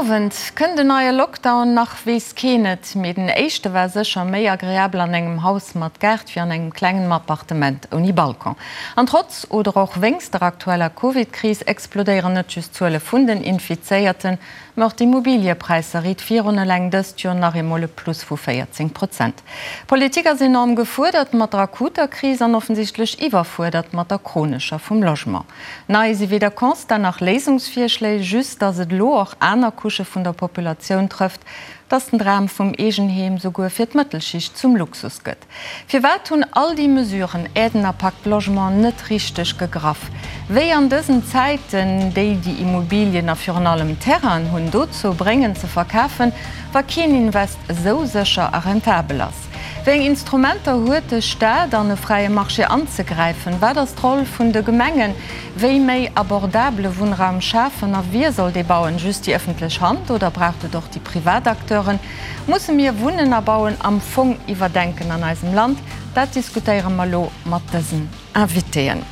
Owend. Kënnt en neie Lockdown? Nach weess keen et, mee den éischte war sécher méi agreabel an engem Haus mat Gaart wéi an engem klengen Appartement ouni Balcon. An trotz oder och wéinst der aktueller Covid-Kris explodéieren net just d'Zuele vun den Infizéierten, Mä och d'Immobiliëpräisser riit virun, eleng dëst Joer nach eemol e Plus vu 14 Prozent. D'Politik ass enorm gefuerdert mat der akuter Kris an offensichtlech iwwerfuerdert mat der chronescher vum Logement. Nei si weder Constat nach Léisungsvirschléi, just datt et elo och aner Couchë vun der Populatioun trëfft, datt den Dram vum Eegenheem souguer fir d'Mëttelschicht zum Luxus gëtt. Firwat hunn all déi Mesuren, Aiden a Pacte Logement, net richteg gegraff? Wéi an dësen Zäiten déi, déi Immobilien a virun allem Terrainen hunn, dozou bréngen ze verkafen, wa keen Invest esou sécher a rentabel ass? Wéi eng Instrumenter huet de Staat an e fräie Marché anzegräifen? Wat ass d'Roll vun de Gemengen? Wéi méi abordabele Wunnraum schafen a wie soll dee bauen? Just déi ëffentlech Hand oder braucht et och déi privat Acteuren? Musse mir Wunnen a Bauen am Fong iwwerdenken an eisem Land? Dat diskutéiere mer elo mat dësen Invitéen.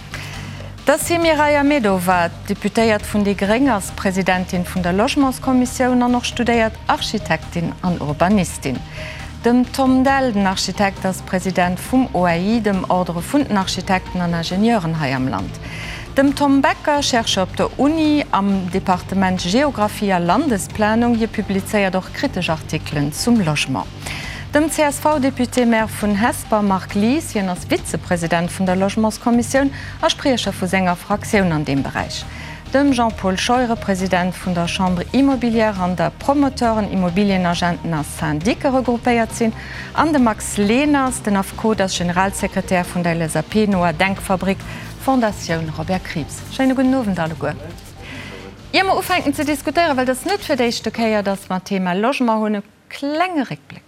D'Mireille Ahmedova, Deputéiert vun déi Gréng, ass Presidentin vun der Logementskommissioun an och studéiert Architektin an Urbanistin. Dem Tom Dell, den Architekt, ass President vum OAI, dem Ordre vun den Architekten an Ingenieuren hei am Land. Dem Tom Becker, Chercheur op der Uni am Departement Geographie a Landesplanung, hie publizéiert och kritesch Artikelen zum Logement. Dem CSV-Député-Maire vun Hesper Marc Lies, hien ass Vizepresident vun der Logementskommissioun a Spriecher vu senger Fraktioun an deem Beräich. Dem Jean-Paul Scheuren, President vun der Chambre immobilière, an der Promoteuren, Immobilienagenten a Syndique regroupéiert sinn, an de Max Leners, den Affekot ass Generalsekretär vun der LSAP-noer Denkfabrik Fondatioun Robert Krieps. Schéine gudden Owend alleguer. Ier mer ufänken ze diskutéieren, well et ass net fir d'éischte Kéier, datt mer d'Thema Logement hunn, e klenge Réckbléck.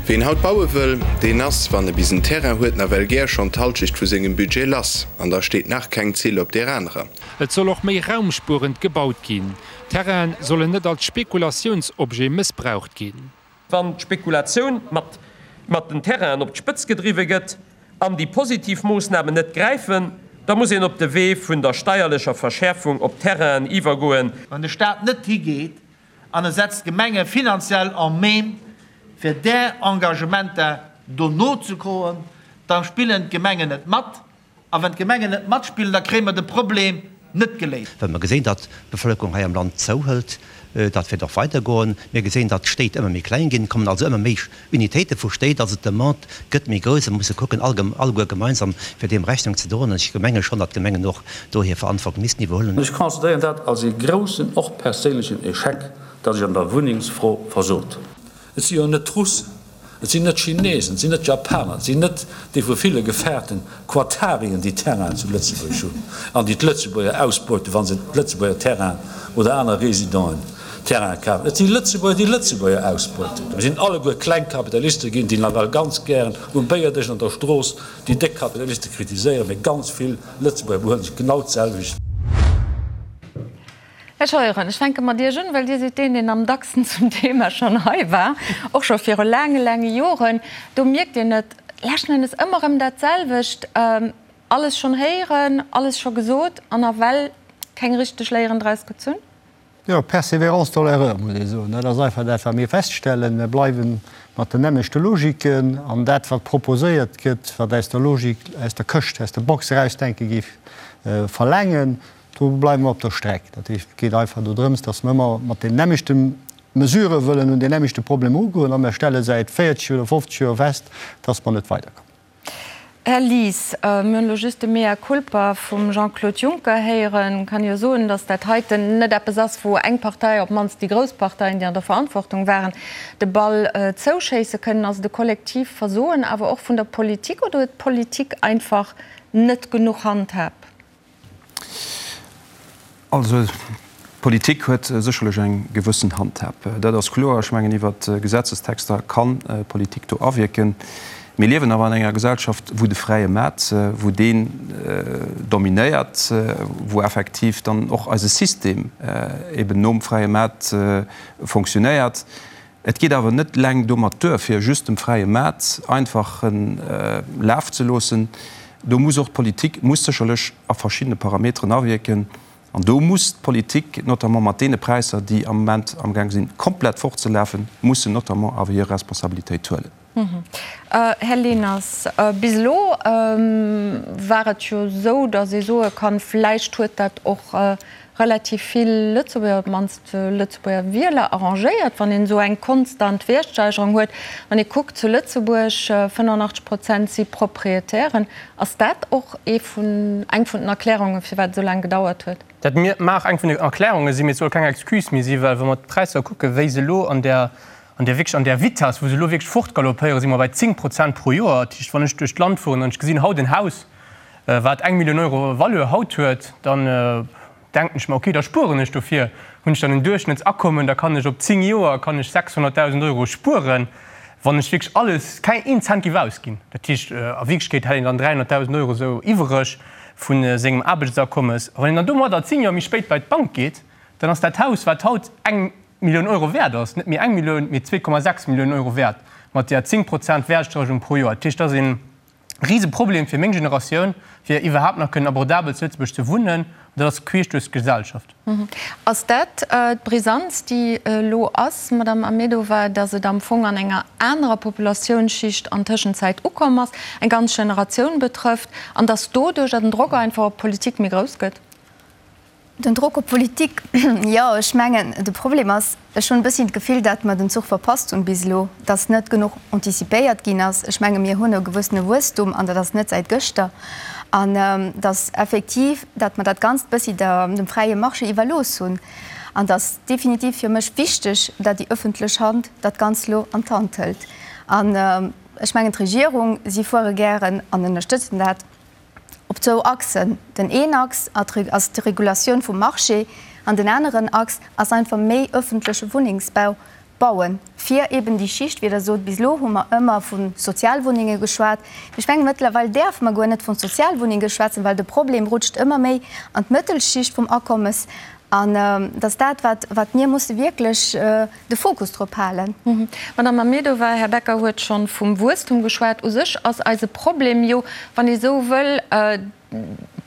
Ween haut baue wëll, deen ass, wann e bis en Terrain huet, nawell gär schonn d'Halschecht vu sengem Budget lass. An da steet nach keng Zill op deer anerer. Et soll och méi raumspuerend gebaut ginn. Terrainen sollen net als Spekulatiounsobjet mëssbraucht ginn. Wann d'Spekulatioun mat mat den Terrainen op d'Spëtz gedriwwe gëtt an déi positiv Moossnamen net gräifen, da muss een op de Wee vun der steierlecher Verschäerfung op Terrainen iwwergoen. Wann de Staat net higeet an e setzt d'Gemenge finanziell en même, fir där Engagementer do nozekoen, da spillen d'Gemengen net mat. A wann d'Gemengen net matspillen, da kréie mer de Problem net geléist. Well mer gesinn, datt d'Bevëlkerung hei am Land zouhëlt, dat wäert och weidergoen. Mir gesinn, datt d'Stéit ëmmer méi kleng ginn, et kommen also ëmmer méi Unitéite vu Stéit, also d'Demande gëtt méi grouss a mer musse kucken, alleguer gemeinsam, fir deem Rechnung ze droen. An ech menge schonn, datt d'Gemengen och do hir Verantwortung missten iwwerhuelen. Ech considéieren dat als ee groussen, och perséinlechen Echec, datt ech an der Wunnengsfro versot hunn. Et si jo net d'Russen, Et sinn net d'Chinesen, et sinn net d'Japaner, et sinn net déi vu ville gefaarten Quatarien, déi Terrainen zu Lëtzebuerg hunn an déi d'Lëtzebuerger ausbeuten, wa se Lëtzebuerger Terrainen oder aner Résidenten Terrainen kafen. Et si Lëtzebuerger, déi Lëtzebuerger ausbeuten. Mir sinn alleguer kleng Kapitaliste ginn, déi nawell ganz gären um Béierdësch an der Strooss déi déck Kapitaliste kritiséieren, mee ganz vill Lëtzebuerger behuelen sech genau d'selwecht. Här Scheuren, ech fänke mat Iech un, well Dir sidd deen, deen am dacksten zum Thema schonn hei war, och scho viru laange, laange Joren. Do mierkt een et leschten Endes ëmmer erëm dat selwecht, alles schonn héieren, alles scho gesot an nawell keng richteg Léieren draus gezunn. Jo, persévérance dans l'erreur, muss ee soen. Dat ass einfach dat, wat mir feststellen. Mir bleiwe mat den nämmlechte Logiken an dat, wat proposéiert gëtt, wat aus der Logik, aus der Këscht, aus der Box erausdenke géif verlaangen, Do bleiwe mer op der Streck. Dat heescht, et geet einfach dodrëms, dass mer ëmmer mat den nämmlechte Mesurë wëllen un deen nämmlechte Problem erugoen a mer stelle säit 40 oder 50 Joer fest, dass mer net weiderkommen. Här Lies, mir hunn elo just de Mea culpa vum Jean-Claude Juncker héieren. Kann jo soen, dass dat heiten net eppes ass, wou eng Partei, op d'mannst déi grouss Parteien, déi an der Verantwortung waren, de Ball zouschéisse kënnen. Ass et e kollektiv Versoen awer och vun der Politik oder huet d'Politik einfach net genuch Handhab? Also, d'Politik huet sécherlech eng gewëssen Handhab. Dat ass kloer. Ech mengen, iwwer Gesetzestexter kann d'Politik do awierken. Mir liewen awer an enger Gesellschaft, wou de fräie Maart, wou deen dominéiert, wou effektiv dann och eise System eben nom fräie Maart fonctionnéiert. Et geet awer net eleng domat duer, fir just dem fräie Maart einfach Laf ze loossen. Do muss och d'Politik muss sécherlech a verschiddene Parameteren awierken. An do muss d'Politik, notamment mat deene Präisser, déi am Moment amgaang sinn, komplett fortzelafen, mussen notamment awer hir Responsabilitéit huelen. Här Leners, bis elo war et jo esou, datt ee soe kann, vläicht huet dat och relativ vill Lëtzebuerger, op d'mannst Lëtzebuerger Wieler arrangéiert, wann een esou eng konstant Wäertsteigerung huet. Wann ee kuckt zu Lëtzebuerg, 85 Prozent si Proprietären. Ass dat och ee vun, eng vun den Erklärungen, firwat et esou laang gedauert huet? Dat mag eng vun den Erklärunge sinn, mee et soll keng Excuse méi sinn, well wa mer d'Präisser kucken, wéi se elo an där, an där wierklech an där Vitesse, wou se elo wierklech fortgaloppéieren, si mer bei 10 Prozent pro Joer. Dat heescht, wann ech duerch d'Land fueren an ech gesinn haut en Haus, wat eng Millioun Euro Valeur haut huet, dann denken ech mer, okay, da spueren ech dofir, hunn ech dann en Duerchschnëttsakommen, da kann ech op 10 Joer kann ech 600.000 Euro spueren, wann ech wierklech alles, keng een Cent géif ausginn. Dat heescht, a Wierklechkeet hätt een dann 300.000 Euro esou iwwereg vu sengem Aarbechtsakommes. A wann een dann domadder 10 Joer méi spéit bei d'Bank geet, dann ass dat Haus, wat haut eng Millioun Euro wäert ass, net méi eng Millioun, mee 2,6 Milliounen Euro wäert, mat där 10 Prozent Wäertsteigerung pro Joer. Dat heescht, dat ass ee Riseproblem fir meng Generatioun, fir iwwerhaapt nach kënnen abordabel zu Lëtzebuerg ze wunnen. An dat ass queesch duerch d'Gesellschaft. Ass dat d'Brisanz, déi elo ass, Madamm Ahmedova, datt et am Fong an enger anerer Populatiounsschicht an Tëschenzäit ukomm ass, eng ganz Generatioun betrëfft, an datt doduercher den Drock einfach op d'Politik méi grouss gëtt? Den Drock op d'Politik, jo, ech mengen, de Problem ass, ech hunn e bësschen d'Gefill, datt mer den Zuch verpasst hunn bis elo, datt net genuch antizipéiert ginn ass. Ech menge mir hunn e gewëssene Wuesstum an dat ass net säit gëschter an datt effektiv, datt mer dat Ganzt bëssi der, dem fräie Marché iwwerlooss hunn. An et ass definitiv fir mech wichteg, datt déi ëffentlech Hand dat Ganzt elo an d'Hand hëlt. An ech mengen d'Regierung, si fuere gären an ënnerstëtzen dat, op zwou Achsen. Den een Achs ass d'Regulatioun vum Marché an den aneren Achs ass einfach méi öffentleche Wunnengsbau bauen, fir eben déi Schicht, wéi Der sot, bis elo hu mer ëmmer vu Sozialwunnenge geschwat, mee ech menge mëttlerweil däerfe mer guer net vu Sozialwunnenge schwätzen, well de Problem rutscht ëmmer méi an d'Mëttelschicht vum Akommes an dat ass dat, wat, wat mir musse wierklech de Fokus drop halen. Madame Ahmedova, Här Becker huet scho vum Wuesstum geschwat. U sech ass eise Problem jo, wann ee sou wëll,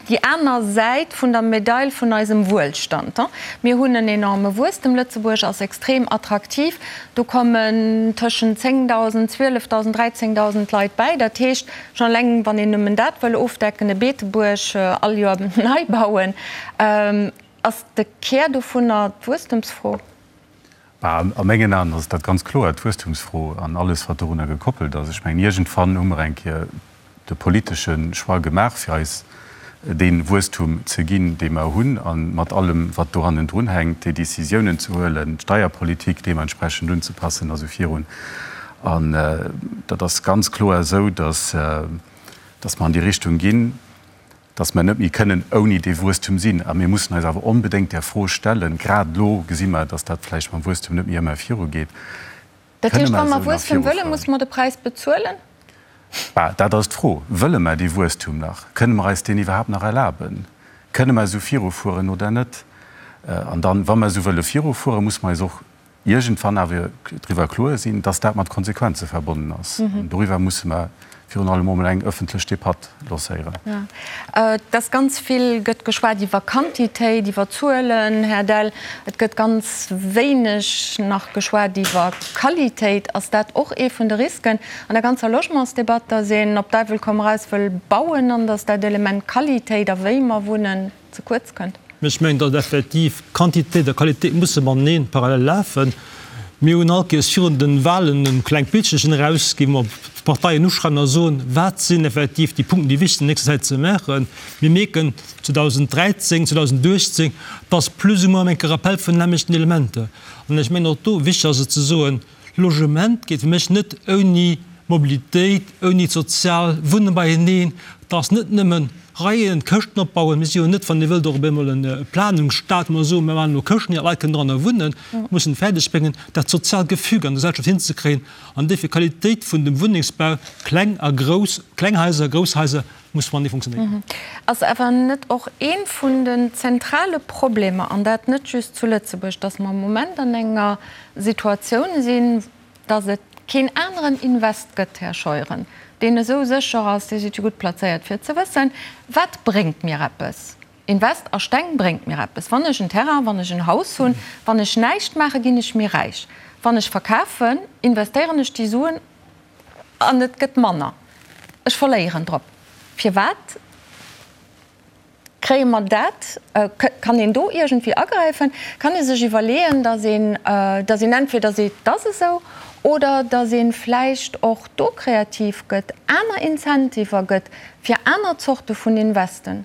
déi aner Säit vun der Medail vun eisem Wuelstand. Mir hunn en enorme Wuesstem, Lëtzebuerg ass extrem attraktiv, do kommen tëschent 10.000, 12.000, 13.000 Leit bäi. Dat heescht, schonn eleng wann een nëmmen dat wëll ofdecken, e Beetebuerg all Joer nei bauen, ass de Kär dovunner d'Wuesstemsfro. Bah, a mengen Aen ass dat ganz kloer d'Wuesstumsfro an alles, wat dorunner gekoppelt ass. Ech mengen, iergendwann hu mer eng Kéier de politesche Choix gemaach, fir eis dee Wuesstum ze ginn, dee mer hunn, a mat allem, wat do hannendrun hänkt, déi Décisiounen ze huelen, d'Steierpolitik deementsprechend unzepassen a sou virun. An dat ass ganz kloer esou, dass, dass mer an déi Richtung ginn. dass mer net méi kënnen ouni dee Wuesstum sinn. A mir mussen eis awer onbedéngt där Fro stellen, grad elo gesi mer, dass dat vläicht mam Wuesstum net méi ëmmer virugeet, Dat Kënne heescht, mer wa mer esou nach Wuesstum wëllen, virufueren? musse mer de Präis bezuelen? Bah, dat ass d'Fro. Wëlle mer dee Wuesstum nach? Kënne mer eis deen iwwerhaapt nach erlaben? Kënne mer esou virufueren oder net? An dann, wa mer esou wëlle virufueren, musse mer eis och iergendwann awer driwwer kloer sinn, dass dat mat Konsequenze verbonnen ass. An doriwwer musse mer virun allem emol eng ëffentlech Debatt lancéieren. Et ass ganz vill gëtt geschwat iwwer Quantitéit, iwwer Zuelen, Här Dell. Et gëtt ganz wéineg nach geschwat iwwer Qualitéit. Ass dat och ee vun de Risken an der ganzer Logementsdebatt, dass een op Däiwel komm raus wëll bauen an dass dat Element Qualitéit a wéi mer wunnen ze kuerz kënnt? Ech mengen, datt effektiv Quantitéit a Qualitéit musse matenee parallel lafen. Mir hunn all Kéiers virun de Wahlen e klengt Bildchen erausginn, wou mer d'Parteien uschreiwen a soen, wat sinn effektiv déi Punkten, déi wichteg sinn an nächster Zäit ze maachen. Mir mierken 2013, 2018, dass plus ou moins eng Kéier Rappel vun den nämmlechten Elementer. An ech mengen och do, wichteg ass et ze soen, Logement geet fir mech net ouni Mobilitéit, ouni d'sozial Wunnen beieneen. Et ass net nëmmen Reien, Këschten opbauen. Mir si jo net, wann Dir wëllt, och op eemol e Planungsstaat, wou mer soen, mir maachen elo Këschten, déi Leit kënnen dranner wunnen. Mir mussen et fäerdeg bréngen, dat soziaalt Gefüge an der Gesellschaft hinzekréien an duerfir d'Qualitéit vun dem Wunnengsbau, kleng a grouss, kleng Haiser, grouss Haiser, muss matenee funktionéieren. Ass awer net och ee vun den zentrale Problemer, an dat net just zu Lëtzebuerg, datt mer am Moment an enger Situatioun sinn, datt et keen aneren Invest gëtt, Här Scheuren, deen esou sécher ass, Dir sidd jo gutt plazéiert fir et ze wëssen, wat bréngt mir eppes? Invest a Steng bréngt mir eppes. Wann ech en Terrain, wann ech en Haus hunn, wann ech näischt maache ginn ech méi räich. Wann ech verkafen, investéieren ech déi Suen an et gëtt manner. Ech verléieren drop. Firwat kréie mer dat? Kann een do iergendwéi agräifen? Kann ee sech iwwerleeën, datt een, datt een entweder seet, et ass esou, oder datt ee vläicht och do kreativ gëtt, aner Incentiver gëtt fir aner Zorte vun Investen?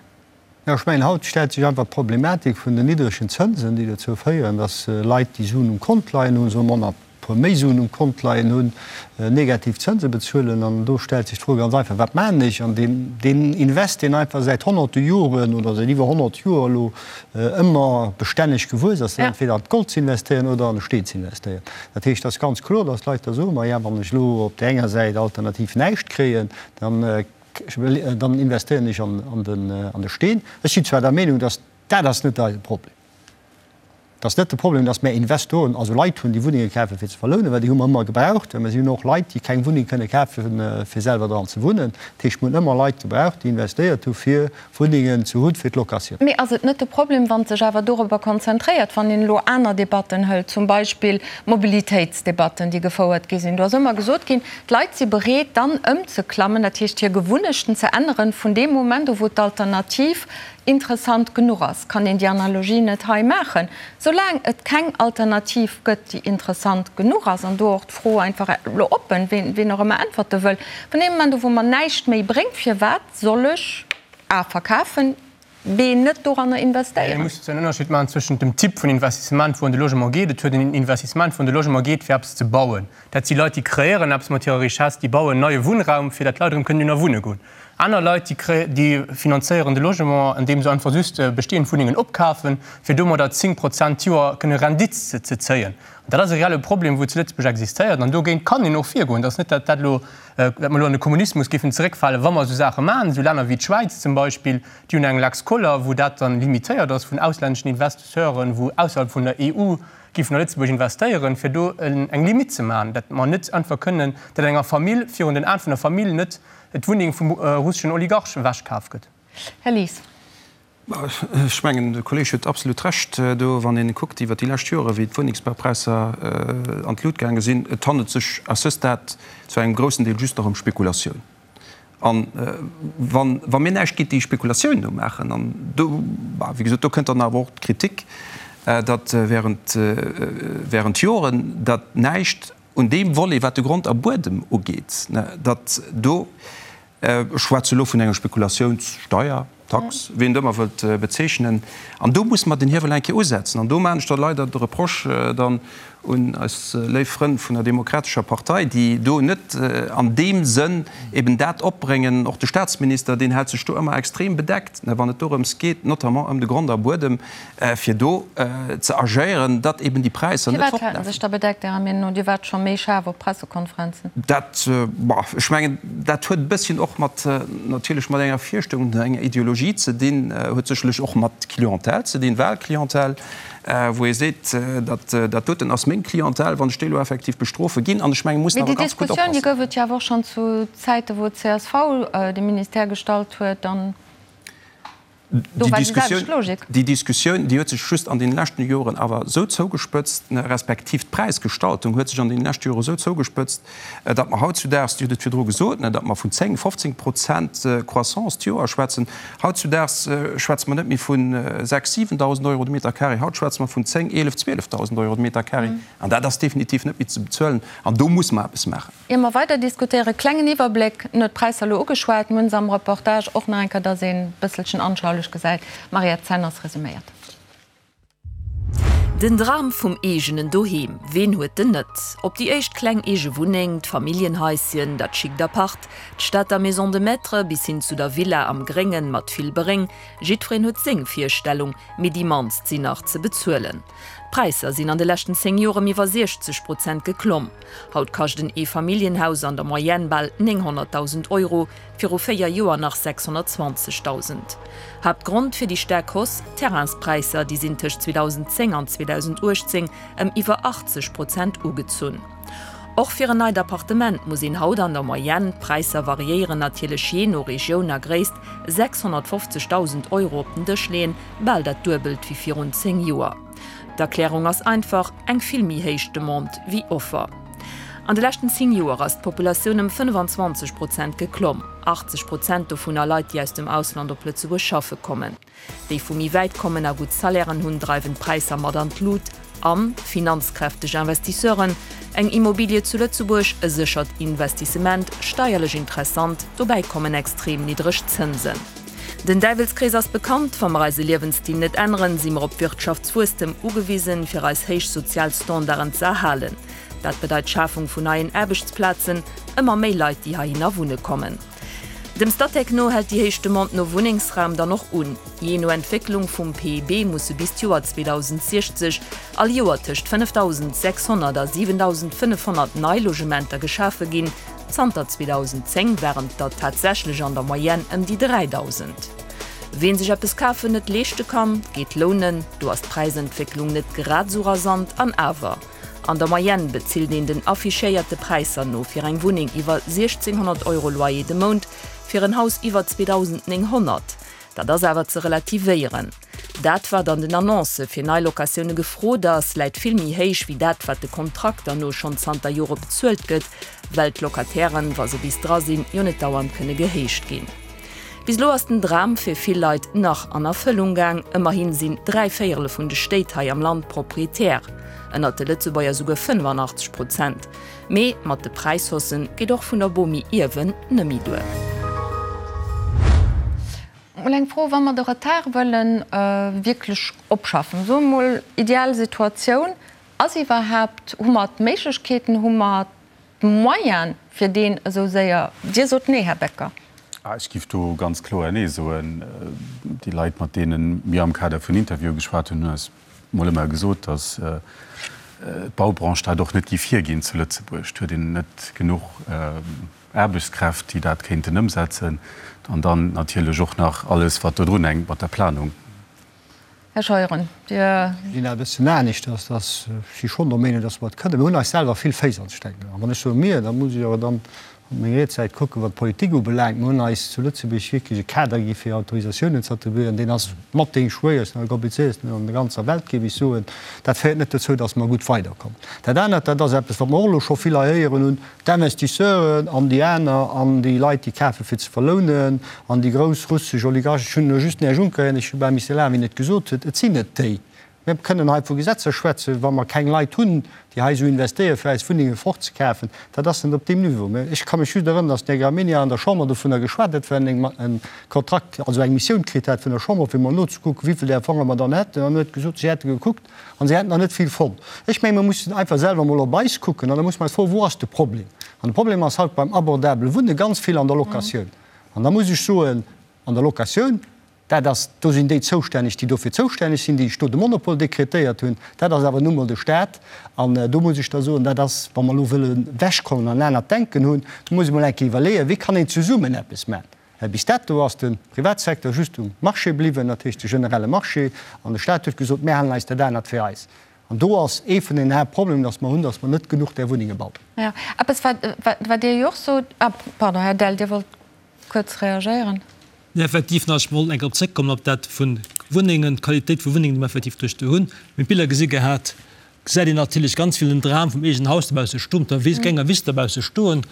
Jo, ech mengen, haut stellt sech einfach d'Problematik vun den niddregen Zënsen, déi dozou féieren, dass Leit, déi Suen um Kont leien hunn, soe mer, e puer méi Suen um Kont leien hunn, negativ Zënse bezuelen. An do stellt sech d'Fro ganz einfach, Wat maachen ech? An deen, deen Invest, deen einfach säit honnerte Joren oder säit iwwer 100 Joer elo ëmmer bestänneg gewuess ass, dat ass entweder an d'Gold ze investéieren oder an de Steen ze investéieren. Dat heescht, et ass ganz kloer, dass d'Leit da soen, Maja, wann ech elo op där enger Säit alternativ näischt kréien, dann Dann investéieren ech an de Steen. Ech sinn zwar der Meenung, dass dat ass net eise Problem. Et ass net de Problem, dass mär Investoren, also Leit hunn, déi Wunnenge kafen, fir ze verlounen, well déi hu mer ëmmer gebraucht. Well mer si hunn och Leit, déi keng Wunneng kënne kafen, fir selwer dran ze wunnen. Dat heescht, mir hunn ëmmer Leit gebraucht, déi investéiert hu fir Wunnengen ze hunn fir d'Locatioun. Mee ass et net de Problem, wann sech awer dorobber konzentréiert, wann een elo aner Debatten hëlt, zum Beispill d'Mobilitéitsdebatten, déi gefouert gi sinn? Do ass ëmmer gesot ginn, d'Leit si bereet dann ëmzeklammen, dat heescht hir Gewunnechten ze änneren, vun deem Moment u wou d'Alternativ interessant genuch ass. Kann een déi Analogie net hei maachen? Soulaang et keng Alternativ gëtt, déi interessant genuch ass, an do och d'Fro einfach elo oppen, ween och ëmmer äntwerte wëll, vun deem Moment u wou mer näischt méi bréngt, firwat soll ech A verkafen, B net doranner Ee investéieren? muss en Ënnerscheed maachen zwëschent dem Typ vun Investissement, wou an de Logement geet. Et huet een Investissement, wou an de Logement geet, fir eppes ze bauen. Dat si Leit, déi kreéieren eppes mat hirer Richesse, déi bauen neie Wunnraum, fir dat d'Leit erëm kënnen dohinner wunne goen. Aner Leit, déi déi finanzéieren de Logement, andeem se einfach just bestehend Wunnengen opkafen, fir domadder 10 Prozent d'Joer kënne Rendite ze zéien. An dat ass e reelle Problem, wou zu Lëtzebuerg existéiert. An dogéint kann een och virgoen. Et ass net, datt dat elo, datt mer elo an de Kommunismus géifen zeréckfalen, wa mer esou Saache maachen. Esou Länner wéi d'Schwäiz zum Beispill, déi hunn eng Lex Koller, wou dat dann limitéiert ass vun auslänneschen Investisseuren, wou ausserhalb vun der EU géifen a Lëtzebuerg investéieren, fir do eng Limite ze maachen, datt mer net einfach kënnen, datt enger Famill virun den Aen vun der Famill net d'Wunneng vum russeschen Oligarch ewechkaf gëtt. Här Lies. Ech mengen, de Kolleeg huet absolut Recht do, wann ee kuckt iwwert déi lescht Jore wéi d'Wunnengsbaupräisser an d'Lut gaange sinn. Et handelt sech à ce stade zu engem groussen Deel just nach ëm Spekulatioun. A wa mir näischt géint déi Spekulatioun do maachen, an do, wéi gesot, do kënnt dann awer och d'Kritik, datt während, während Joren datt näischt un deem Volet, wat de Grond a Buedem ugeet, datt do, ech schwätze elo vun enger Spekulatiounssteuer, Tax, wéi een et ëmmer wëllt bezeechnen, an do musse mer den Hiewel eng Kéier usetzen. An do maachen ech da leider de Reproche dann un eis léif Frënn vun der Demokratescher Partei, déi do net an deem Sënn eben dat opbréngen, och de Statsminister, deen hält sech do ëmmer extrem bedeckt, wann et dorëms geet, notamment ëm de Grond a Buedem, fir do ze agéieren, datt eben déi Präisser net Firwat hält en fortlafen. sech da bedeckt, Ärer Meenung no? Dir waart scho méi schaarf op Pressekonferenzen. Dat, bon, ech mengen, dat huet e bësschen och mat, natierlech mat enger Virstellung, enger Ideologie ze dinn, huet sécherlech och mat Clientèle ze dinn, Wahlclientèle, wou ee seet, dat, dat doten ass meng Clientèle, wann ech déi elo effektiv bestrofe ginn. An ech mengen, mir mussen Mee awer déi ganz gutt Diskussioun, déi oppassen. gouf et jo awer och schonn zu Zäite wou d'CSV de Ministère gestallt huet an. Do war déi selwecht Logik. Déi Diskussioun, déi huet sech just an deene leschten Joren awer esou zougespëtzt, respektiv d'Präisgestaltung huet sech an deene leschte Jore esou zougespëtzt, datt mer hautzudaags, Dir hutt et virdru gesot, datt mer vun 10, 15 Prozent Croissance d'Joer schwätzen. Hautzudaags schwätze mer net méi vu 6.000, 7.000 Euro de Meter carré, haut schwätze mer vun 10, 11, 12.000 Euro de Meter carré. An dat ass definitiv net méi ze bezuelen. An do musse mer eppes maachen. Ier mer weider diskutéieren, klengen Iwwerbléck, en huet d'Präisser elo ugeschwat, mir hunn se am Reportage och nach eng Kéier, dass een e bësselchen anschaulich gesäit. D'Mariette Zenners resuméiert. Den Dram vum eegenen Doheem, ween huet den net? Ob déi éischt kleng eege Wunneng, d'Familljenhaisschen, dat schickt Apart, d'Stater Maison de Maître bis hin zu der Villa am Gréngen mat vill Beréng, jiddwereen huet seng Virstellung, mee déi mannst sinn nach ze bezuelen. D'Präisser sinn an de leschten 10 Joer ëm iwwer 60 Prozent geklomm. Haut kascht en Eefamilljenhaus an der Moyenne bal 900.000 Euro, viru 4 Joer nach 620.000. Haaptgrond fir déi staark Hausse, d'Terrainspräisser, déi sinn tëscht 2010 an 2018 ëm iwwer 80 Prozent ugezunn. Och fir en neit Appartement muss een haut an der Moyenne, d'Präisser variéieren natierlech jee no Regioun a Gréisst, 650.000 Euro op den Dësch leeën, bal dat Duebelt wéi virun 10 Joer. D'Erklärung ass einfach, eng vill méi héich Demande wéi Offer. An de leschten 10 Joer ass d'Populatioun ëm 25 Prozent geklomm, 80 Prozent dovunner Leit, déi aus dem Ausland op Lëtzebuerg schaffe kommen. Déi vu méi wäit kommen a gutt Salairen hunn, dreiwen d'Präisser mat an d'Lut. An finanzkräfteg Investisseuren, eng Immobilie zu Lëtzebuerg, e séchert Investissement, steierlech interessant, dobäi kommen extrem niddreg Zënsen. Den Däiwelskrees ass bekannt, Wa mer eise Liewensstil net änneren, si mer op Wirtschaftswuesstem ugewisen, fir eis héich sozial Standarden ze erhalen. Dat bedeit d'Schafung vun neien Aarbechtsplazen, ëmmer méi Leit, déi heihinner wunne kommen. Dem Statec no hält déi héich Demande no Wunnengsraum dann och un. Jee no Entwécklung vum PIB musse bis d'Joer 2060 all Joer tëscht 5.600 a 7.500 nei Logementer geschafe ginn. Zanter 2010 waren et der tatsächlech an der Moyenne ëm déi 3.000. Ween sech eppes kafen net leeschte kann, geet lounen. Do ass d'Präisentwécklung net grad esou rasant an awer. An der Moyenne bezilt een den affichéierte Präisser no fir eng Wunneng iwwer 1.600 Euro Loyer de Mount, fir en Haus iwwer 2.900. Dat ass awer ze relativéieren. Dat, wat an den Annoncë fir nei Locatioune gefrot ass, läit vill méi héich wéi dat, wat de Kontrakter no schonn zanter Jore bezuelt gëtt, well d'Locatairen, wa se bis dra sinn, jo net dauernd kënne gehéicht ginn. Bis elo ass den Dram fir vill Leit nach an Erfëllung gaang. Ëmmerhin sinn 3 Véierele vun de Stéit hei am Land Proprietär, ënnert de Lëtzebuerger souguer 85 Prozent. Mee mat de Präishaussen geet och vun der Bomi ierwen nëmmi duer. Mol eng Fro, Wa mer de Retard wëllen wierklech opschaffen, soe mol ideal Situatioun, ass iwwerhaapt, hu mer d'Méiglechkeeten, hu mer D'Moyen fir deen esou séier. Dir sot Nee, Här Becker. Ech giff do ganz kloer Nee soen. Déi Leit, mat deene mir am Kader vun Interviewe geschwat hunn, hunn eis mol ëmmer gesot, datt d'Baubranche dat och net giff hierginn zu Lëtzebuerg. Et huet een net genuch Aarbechtskräft, déi dat kéinten ëmsetzen. An dann natierlech och nach alles, wat do drunhänkt mat der Planung. Här Scheuren, Dir. Ech gesinn dat e bëssen aneschters, dass ech si schonn der Meenung, dass mer et kënnen. Mir hunn eis selwer vill Féiss an d'Stäck gehaen. Wann ech soe mir, da muss ech awer dann op meng riets Säit kucken, wat d'Politik ubelaangt. Mir hunn eis zu Lëtzebuerg wierklech e Kader gi fir Autorisatiounen ze attribuieren, deen ass mat dee schwéiersten a komplizéiersten an der ganzer Welt, géif ech soen. Dat féiert net dozou, dass mer gutt weiderkommen. Dat anert, dat ass eppes, wat mer och elo scho vill hei héieren hunn, D'Investisseuren an déi aner an déi Leit, déi kafen, fir ze verlounen, an déi grouss russesch Oligarchen, ech hunn elo just den Här Juncker héieren, ech hu bal misse lachen, wéi en et gesot huet, et sinn net déi. Mir kënnen hei vu Gesetzer schwätzen, wa mer keng Leit hunn, déi hei esou investéieren, fir eis Wunnenge fortzekafen, dat ass net op deem Niveau. Mä ech ka mech just erënneren, datt den Här Gramegna an der Chamber dovunner geschwat huet, well en e Kontrakt, also eng Missioun kritt hat vun der Chamber, fir mol nozekucken, wéi vill där Fonge mer dann hätten, an en huet gesot, si hätte gekuckt, An se hätten der net vill fonnt. Ech mengen, mir mussen einfach selwer emol op eis kucken an da musse mer eis froen, Wou ass de Problem? An de Problem ass haut beim abordabele Wunne ganz vill an der Locatioun. An da muss ech soen, an der Locatioun, dat ass, do sinn déi zoustänneg, déi dofir zoustänneg sinn, déi sech do de Monopol dekretéiert hunn. Dat ass awer nu mol de Stat. An do muss ech da soen, dat ass, wa mer elo wëlle wechkommen an en anert Denken hunn, do muss ee mol eng Kéier iwwerleeën, wéi kann een zesummen eppes maachen. Well bis dato ass de Privatsecteur just um Marché bliwwen, dat heescht de generelle Marché, an de Stat huet gesot, mir halen eis dat anert fir eis. An do ass ee vun den Haaptproblemen, datt mer hunn, datt mer net genuch där Wunnenge bauen. Jo, eppes wat Dir jo och sot. Ah, pardon, Här Dell, Dir wollt kuerz reagéieren. Nee, effektiv, nach, ech wollt eng Kéier drop zréckkommen op dat vu Wunnengen, d'Qualitéit vu Wunnengen, déi mer effektiv duerch do hunn. Mir hunn d'Biller gesi gehat, gesäit een natierlech ganz vill den Dram vum eegenen Haus dobausse stoen, op der Wiss, genger Wiss dobausse stoen.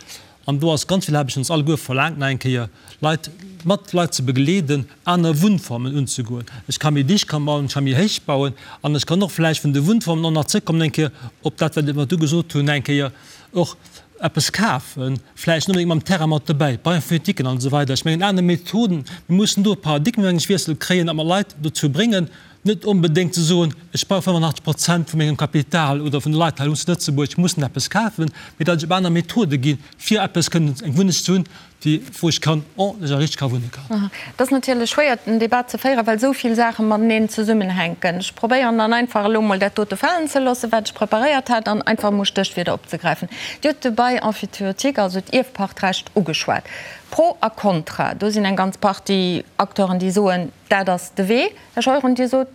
An do ass ganz vill Aarbecht vun ons alleguer verlaangt, nach eng Kéier Leit, mat Leit ze begleeden, aner Wunnformen unzegoen. Ech ka méi dicht kann bauen, ech ka méi héich bauen an ech kann och vläicht vun de Wunnformen och nach zrëckkommen eng Kéier op dat, wat mer du gesot hunn, eng Kéier och eppes kafen, vläicht net onbedéngt mam Terrain mat dobäi, Bail-emphytéutiquen an esou weider. Ech mengen, aner Methoden, mir mussen do e Paradigmenwiessel kréien a mer Leit dozou bréngen, Net onbedéngt ze soen, ech brauch 85 Prozent vu mengem Kapital oder vun de Leit hei zu Lëtzebuerg mussen eppes kafen, mee datt ech op aner Methode ginn, fir eppes kënnen, eng Wunneg ze hunn, déi, wou ech kann ordentlech a richteg ka wunne kann. Et ass natierlech schwéier, den Debat ze féieren, well esou vill Saache mateneen zesummenhänken. Ech probéieren dann einfach elo emol dat dote falen ze loossen, wat ech preparéiert hat, an einfach emol Stéchwierder opzegräifen. Dir hutt de Bail emphytéotique, also d'Ierfpachtrecht, ugeschwat. Pro a Contra, do sinn eng ganz Partie Acteuren, déi soen, dat ass de Wee. Här Scheuren, Dir sot.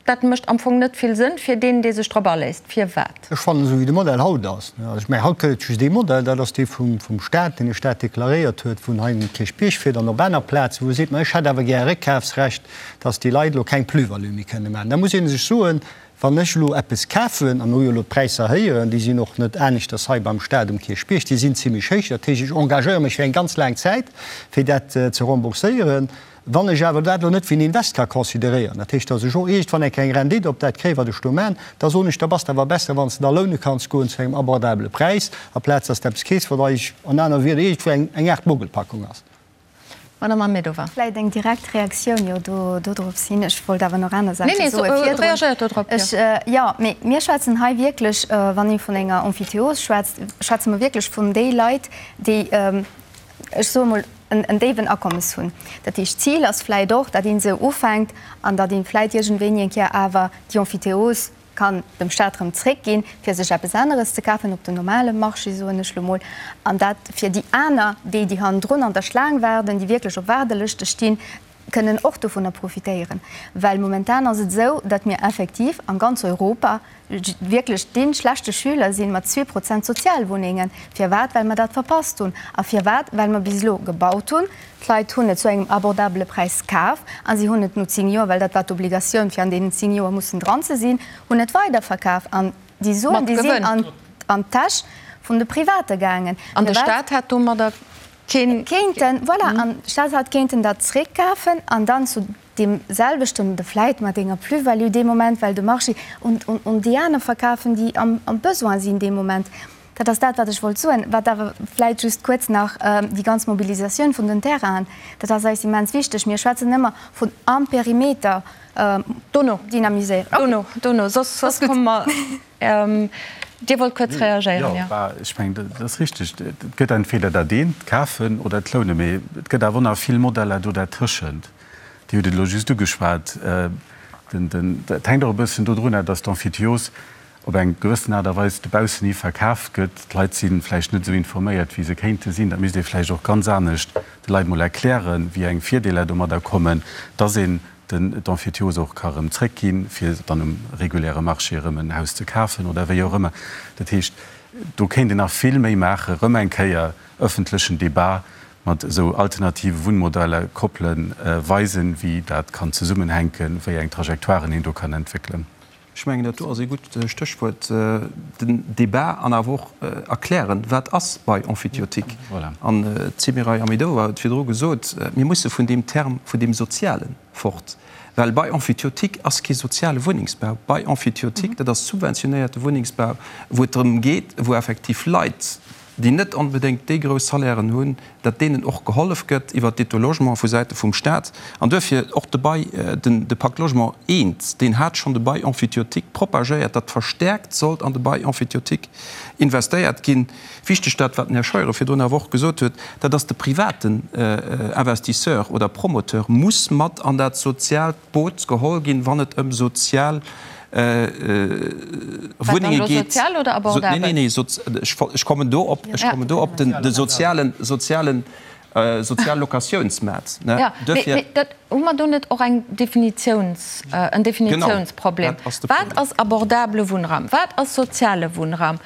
dat mécht am Fong net vill Sënn fir deen, dee sech drop aléisst. Firwat? Ech fannen, esou wéi de Modell haut ass, also ech mengen, haut gëtt et just ee Modell, dat ass dee vum Stat, deen de Stat deklaréiert huet, wou en hei um Kierchbierg fiert an op aner Plazen, wou e seet, ma ech hätt awer gär e Réckkafsrecht, dass déi Leit elo keng Plus-value méi kënne maachen. Da muss ee sech soen, Wann ech elo eppes kafen, a mir hu jo elo d'Präisser héieren, déi sinn och net aneschters hei beim Stat um Kierchbierg, déi sinn zimlech héich, dat heescht, ech engagéiere mech fir eng ganz laang Zäit, fir dat ze rembourséieren. Wann ech awer dat elo net wéi en Invest ka consideréieren, dat heescht, datt ech och iergendwann eng kleng Rendite op dat kréien, wat ech do maachen, da soen ech, da bass de awer besser, wann s de da loune kanns goen zu engem abordabele Präis, amplaz datt s de eppes keefs, wat eigentlech an aner Wierder iergendwou eng eng Aart Mogelpackung ass. Madame Ahmedova. Vläicht eng direkt Reaktioun jo do dodrops hin. Ech wollt awer nach aner Saache soe virdrun. Nee, nee, reagéiert do drop, jo. Ech, jo, mee mir schwätzen hei wierklech, wann ee vun enger Emphytéose schwätzt, schwätze mer wierklech vun déi Leit, déi, ech soe mol, en déiwen Akommes hunn. Dat heescht, d'Zil ass vläicht och, datt een esou ufänkt an datt ee vläicht iergendwéini eng Kéier awer déi Emphytéose kann dem Staat erëm zréckginn, fir sech eppes aneres ze kafen op dem normale Marché, soen ech lo mol, an dat fir déi aner, déi, déi hannendrun an der Schlaang waarden, déi wierklech op Waardelëschte stinn, kënnen och dovunner profitéieren. Well momentan ass et esou, datt mir effektiv an ganz Europa wierklech dee schlechte Schüler sinn mat 2% Sozialwunnengen. Firwat? Well mer dat verpasst hunn. A firwat? Well mer bis elo gebaut hunn, d'Leit hunn et zu engem abordabele Präis kaf a si hunn et no 10 Joer, well dat war d'Obligatioun fir an deenen 10 Joer mussen dran ze sinn, hunn et weiderverkaf. An déi Suen, déi sinn an d'Täsch vun de Private gaangen. An de Staat hat domadder keen. Kéinten, voilà, an de Staat hat kéinten dat zréckkafen an dann zu deem selwechten oder vläit mat enger Plus-value dee Moment, well de Marché, un déi aner verkafen, déi am Besoin sinn dee Moment. Dat ass dat, wat ech wollt soen. Wat awer vläit just kuerz nach, déi ganz Mobilisatioun vun den Terrainen, dat ass eis immens wichteg. Mir schwätzen ëmmer vun am Perimeter dynamiséieren. Dono, dono, soss, soss komme mer. Dir wollt kuerz reagéieren, jo. Jo, ech mengen, dat ass richtig. Et gëtt entweder dat eent, d'Kafen oder d'Lounen, mee et gëtt awer och nach vill Modeller do dertëschent. Dir hutt et elo just ugeschwat. Dat hänkt och e bëssen dodrunner, dass d'Emphytios op eng gewëssen Aart a Weis dobaussen hi verkaaft gëtt. D'Leit si vläicht net esou informéiert, wéi se kéinte sinn. Dat misst ee vläicht och ganz anescht de Leit mol erklären, wéi eng Virdeeler domadder kommen, dass een den d'Emphytiose och ka erëm zréckginn, fir dann um reguläre Marché erëm en Haus ze kafen oder wéi och ëmmer. Dat heescht, do kéint een nach vill méi maachen, erëm eng Kéier öffentlechen Débat mat esou alternative Wunnmodeller koppelen, weisen, wéi dat kann zesummenhänken, wéi eng Trajectoiren een do kann entwéckelen. Ech mengen, dat do ass ee gutt Stéchwuert, den Débat an awer och erklären, wat ass Bail emphytéotique. An d'Semiray Ahmedova huet virdru gesot, mir musse vun deem Term vun deem Soziale fort, well Bail emphytéotique ass kee soziale Wunnengsbau. Bail emphytéotique, dat ass subventionéierte Wunnengsbau, wou et drëm geet, wou effektiv Leit, déi net onbedéngt déi grouss Salairen hunn, datt deenen och gehollef gëtt iwwert d'Aide au logement vu Säite vum Stat. An duerfir och de Bail, den de Pacte Logement I, deen hat schonn de Bail emphytéotique propagéiert, datt verstärkt sollt an de Bail emphytéotique investéiert ginn. Wichteg dat, wat den Här Scheuren virdrun awer och gesot huet, dat ass de privaten Investisseur oder Promoteur muss mat an dat soziaalt Boot geholl ginn, wann et ëm sozial Wunnenge geet. Sozial oder abordabel? Nee, nee, nee, ech kommen do op, ech kommen do op den, de sozialen, sozialen, sozial Locatiounsmaart. Ja, mee dat, hu mer do net och eng Definitiouns, en Definitiounsproblem? Wat ass abordabele Wunnraum? Wat ass soziale Wunnraum?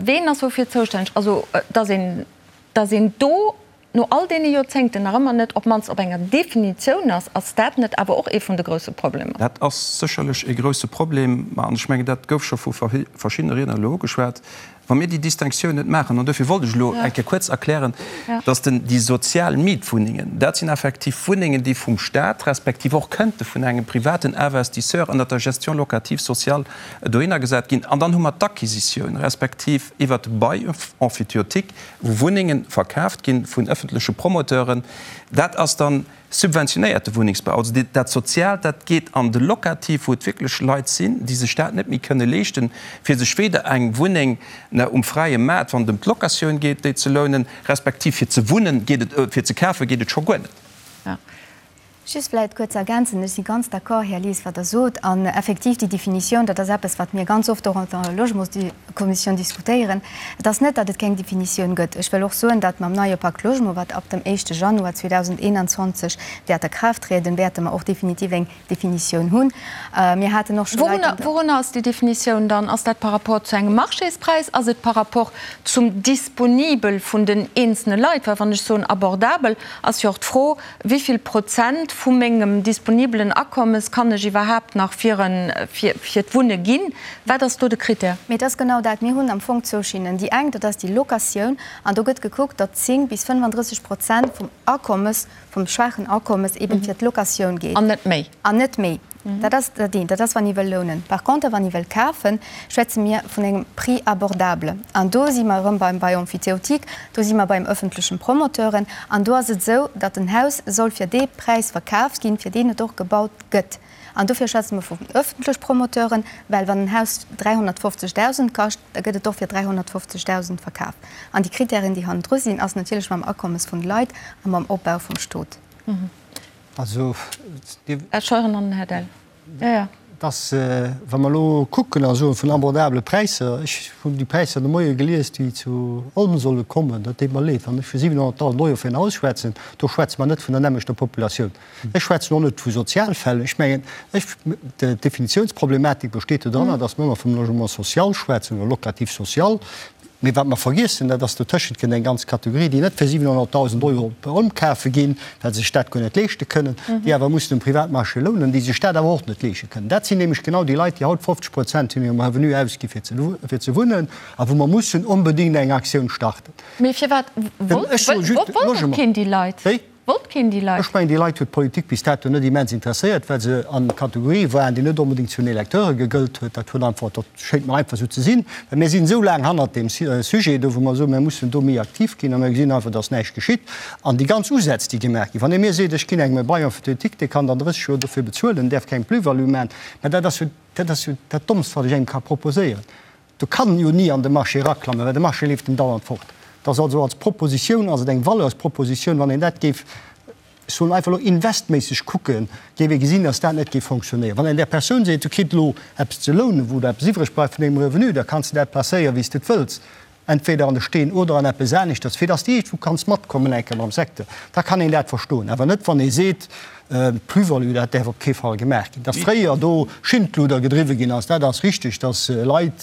Ween ass woufir zoustänneg? Also, dass een, dass een do no all deene Joerzéngten nach ëmmer net op d'mannst op enger Definitioun ass, ass dat net awer och ee vun de grousse Problemer? Dat ass sécherlech ee grousse Problem, ma an ech mengen, dat gouf scho vu verschiddene Riedner elo ugeschwat, wa mir déi Distinctioun net maachen, an dofir wollt ech elo eng Kéier kuerz erklären, dass den, déi sozial Mietwunnengen, dat sinn effektiv Wunnengen, déi vum Stat respektiv och kënnte vun engem privaten Investisseur ënnert der Gestion locative sociale dohinner gesat ginn. An dann hu mer d'Acquisitioun respektiv iwwert de Bail emphytéotique, wou Wunnenge verkaaft gi vun ëffentleche Promoteuren, dat ass dann subventionéierte Wunnengsbau. Also dat Soziaalt, dat geet an de Locatif, wou et wierklech Leit sinn, déi sech dat net méi kënne leeschten, fir sech weder eng Wunneng um fräie Maart, wann et ëm d'Locatioun geet, déi ze lounen, respektiv fir ze wunnen, geet et, fir ze kafe geet et scho guer net. Just vläicht kuerz ergänzen, Ech si ganz d'accord, Här Lies, wat Der sot. An effektiv, déi Definitioun, dat ass eppes, wat mir ganz oft och an der Logementskommissioun diskutéieren. Et ass net, datt et keng Definitioun gëtt. Ech wëll och soen, datt mam neie Pacte Logement, wat ab dem éischte Januar 2021 wäert a Kraaft trieden, wäerte mer och definitiv eng Definitioun hunn. Mir haten och scho Leit an der. Wourunner ass déi Definitioun dann? Ass dat par rapport zu engem Marchéspräis? Ass et par rapport zum Disponibel vun den eenzelne Leit? Well wann ech soen abordabel, ass jo och d'Fro, Wéi vill Prozent vu mengem disponibelen Akommes kann ech iwwerhaapt nach fir fir d'Wunne ginn? Wat ass do de Critère? Mee et ass genau dat. Mir hunn am Fong zwou Schinnen. Déi eng, dat ass déi Locatioun, an do gëtt gekuckt, datt 10 bis 35 Prozent vum Akommes, vum schwaachen Akommes eben fir d'Locatioun geet. An net méi. An net méi. Dat ass dat eent, dat ass wann ee wëll lounen. Par conter, wann ee wëll kafen, schwätze mir vun engem Prix abordable. An do si mer erëm beim Bail emphytéotique, do si mer beim öffentlechen Promoteuren. An do ass et esou, datt en Haus soll fir dee Präis verkaaft ginn, fir deen et och gebaut gëtt. An dofir schwätze mer vun öffentlech Promoteuren, well wann en Haus 350.000 kascht, da gëtt et och fir 350.000 verkaf. An déi Kritären, déi hannendru sinn, ass natierlech mam Akommes vun de Leit a mam Opbau vum Stot. Also, Dir. Här Scheuren an den Här Dell. Jo, jo. Dass, wa mer elo kucken a soen vun abordabele Präisser, ech hunn déi Präisser de Moie gelies, déi zu Olm solle kommen, dat deet mer leed, wann ech vu 700.000 Euro fir en Haus schwätzen, do schwätze mer net vun der nämmlechter Populatioun. Ech schwätzen och net vu Sozialfäll. Ech mengen, ech, d'Definitiounsproblematik besteet dodranner, dass mer ëmmer vum Logement social schwätzen oder locatif social. Mee wat mer vergiessen, dat ass, dotëschent kënnt eng ganz Kategorie, déi net fir 700.000 Euro op Olm kafe ginn, well se sech dat guer net leeschte kënnen, déi awer mussen um Privatmarché lounen, déi sech dat awer och net leesche kënnen. Dat sinn nämlech genau déi Leit, déi haut 50 Prozent vun hirem Revenu ausgi fir ze wunnen a wou mer mussen onbedéngt eng Aktioun starten. Mee firwat wollt keen déi Leit? Wéi? Wollt keen déi Leit? Ech mengen, déi Leit huet d'Politik bis dato net immens interesséiert, well se an Kategorië waren, déi net onbedéngt zu den Electeure gegëllt huet. Dat huet einfach, dat schéngt mer einfach esou ze sinn, well mir sinn esou laang hannert deem Sujet do, wou mer soen, mir mussen do méi aktiv ginn, a mir gesinn einfach, dass näischt geschitt. An déi ganz Usätz, déi gemaach ginn, wann ee mir seet, ech ginn engem e Bail emphytéotique, dee kann dann 30 Joer dofir bezuelen, däerf keng Plus-value maachen, mä dat ass jo, dat ass jo dat Dommst, wat ech engem ka proposéieren. Do kann en jo ni an de Marché eraklammen, well de Marché leeft em dauernd fort. Et ass also als Propositioun ass et eng Valeurspropositioun, wann een dat géif, ech soen einfach elo investméisseg kucken, géif ee gesinn, datt dat net géif fonctionnéieren. Wann een där Persoun seet, du kritt elo eppes ze lounen, wou der eppes iwwreg bleift vun dengem Revenu, da kanns de dat placéieren, wéi s de et wëlls, entweder an de Steen oder an eppes aneschters, fir datt s de iergendwou kanns matkommen eng Kéier mam Secteur, da kann een dat verstoen. Awer net, wann ee seet, D'Plus-value, dat däerf op kee Fall gemaach ginn. Datt fréier do Schindluder gedriwwe ginn ass, dat ass richteg, datt Leit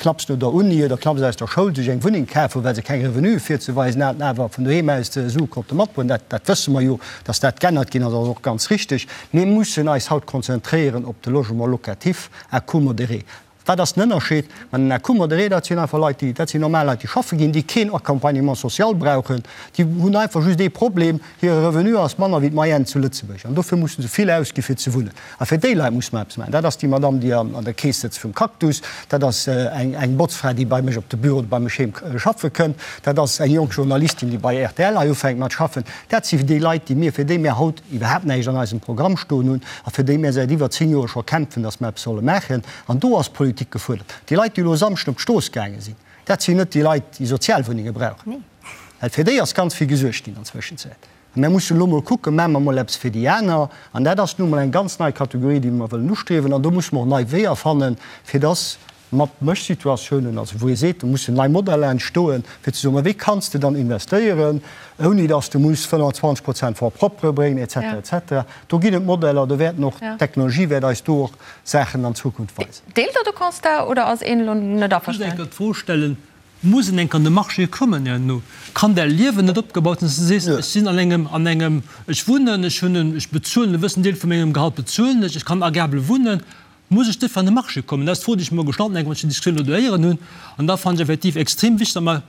knapps no der Uni oder knapps aus der Schoul sech eng Wunneng kaf hunn, well se keng Revenue virzeweisen haten, awer vun doheem aus Sue konnte matbroen. Dat, dat wësse mer jo, datt dat g'ännert ginn ass, ass och ganz richteg. Mir mussen eis haut konzentréieren op de Logement locatif à coût modéré. Wat ass den Ënnerscheed? Ma den à coût modéré, dat sinn einfach Leit, déi, dat sinn normal Leit, déi schaffe ginn, déi keen Accompagnement social brauchen. Déi hunn einfach just ee Problem, Hire Revenu ass manner wéi d'Moyenne zu Lëtzebuerg an dofir musse se vill ausgi fir ze wunnen. A fir déi Leit musse mer eppes maachen. Dat ass déi Madamm, déi an der Keess sëtzt vum Cactus, dat ass eng, eng Botzfra, déi bei mech op de Büro oder bei mech heem schaffe kënnt, dat ass eng jonk Journalistin, déi bei rtl hei ufänkt mat schaffen. Dat si déi Leit, déi mir, fir déi mir haut iwwerhaapt näischt an eisem Programm stoen hunn a fir déi mir säit iwwer 10 Joer scho kämpfen, dass mer eppes solle maachen. An do ass d'Politik gefuerdert. Déi Leit, déi elo e Samschden op d'Strooss gaange sinn, dat sinn net déi Leit, déi Sozialwunnenge brauchen. Well fir déi ass ganz vill gesuergt ginn an Zwëschenzäit. A mir mussen elo mol kucken, maache mer mol eppes fir déi aner. An dat ass nu mol eng ganz nei Kategorie, déi mer wëllen ustriewen. An do musse mer och nei Weeër fannen, fir dass mat Mëschsituatiounen, also wou ee seet, do mussen nei Modeller entstoen, fir ze soen, ma wéi kanns de dann investéieren, ouni dass de muss 25 Prozent Fonds propre bréngen, et cetera, et cetera. Do ginn et Modeller, do wäerten och, d'Technologie wäert eis do och Saachen an Zukunft weisen. Deelt Der de Constat oder ass een elo net averstanen? Ech muss enker d'Fro stellen, Muss en enker an de Marché kommen herno? Kann däi Liewen net opgebaut sinn, dass du sees, ech sinn an engem, an engem, ech wunnen, ech hunn en, ech bezuelen e wëssen Deel vu mengem Gehalt bezuelen ech, ech kann agreabel wunnen, muss ech duerfir an de Marché kommen? Dat ass d'Fro, déi ech mer gestallt hunn, enk wann ech déi Diskussioun elo do héieren hunn. An da fannen ech effektiv extrem wichteg, datt mer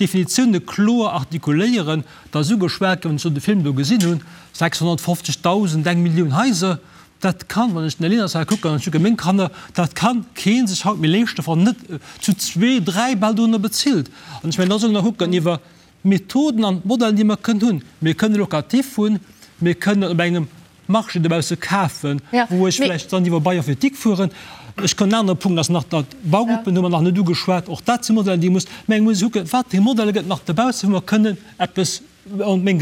D'Definitioune kloer artikuléieren, et ass ugeschwat ginn, wann ech elo de Film do gesinn hunn, 650.000, eng Millioun Haiser, dat kann, wann ech den Här Leners hei kucken an ech kucke meng Kanner, dat ka kee sech haut méi leeschten, wann en net zu zwee, dräi bal dorunner bezilt. An ech mengen, da solle mer kucken iwwer d'Methoden an d'Modellen, déi mer kënnen hunn. Mir kënnen Locatif hunn, mir kënnen op engem Marché dobausse kafen, wou ech vläicht dann iwwer Bail emphytéotique fueren. Ech kann, en anere Punkt ass nach, datt d'Baugruppen hu mer nach net ugeschwat, och dat si Modellen, déi muss, mä eng muss ee kucken, wat fir Modelle gëtt nach dobausse, wou mer kënnen eppes. meng,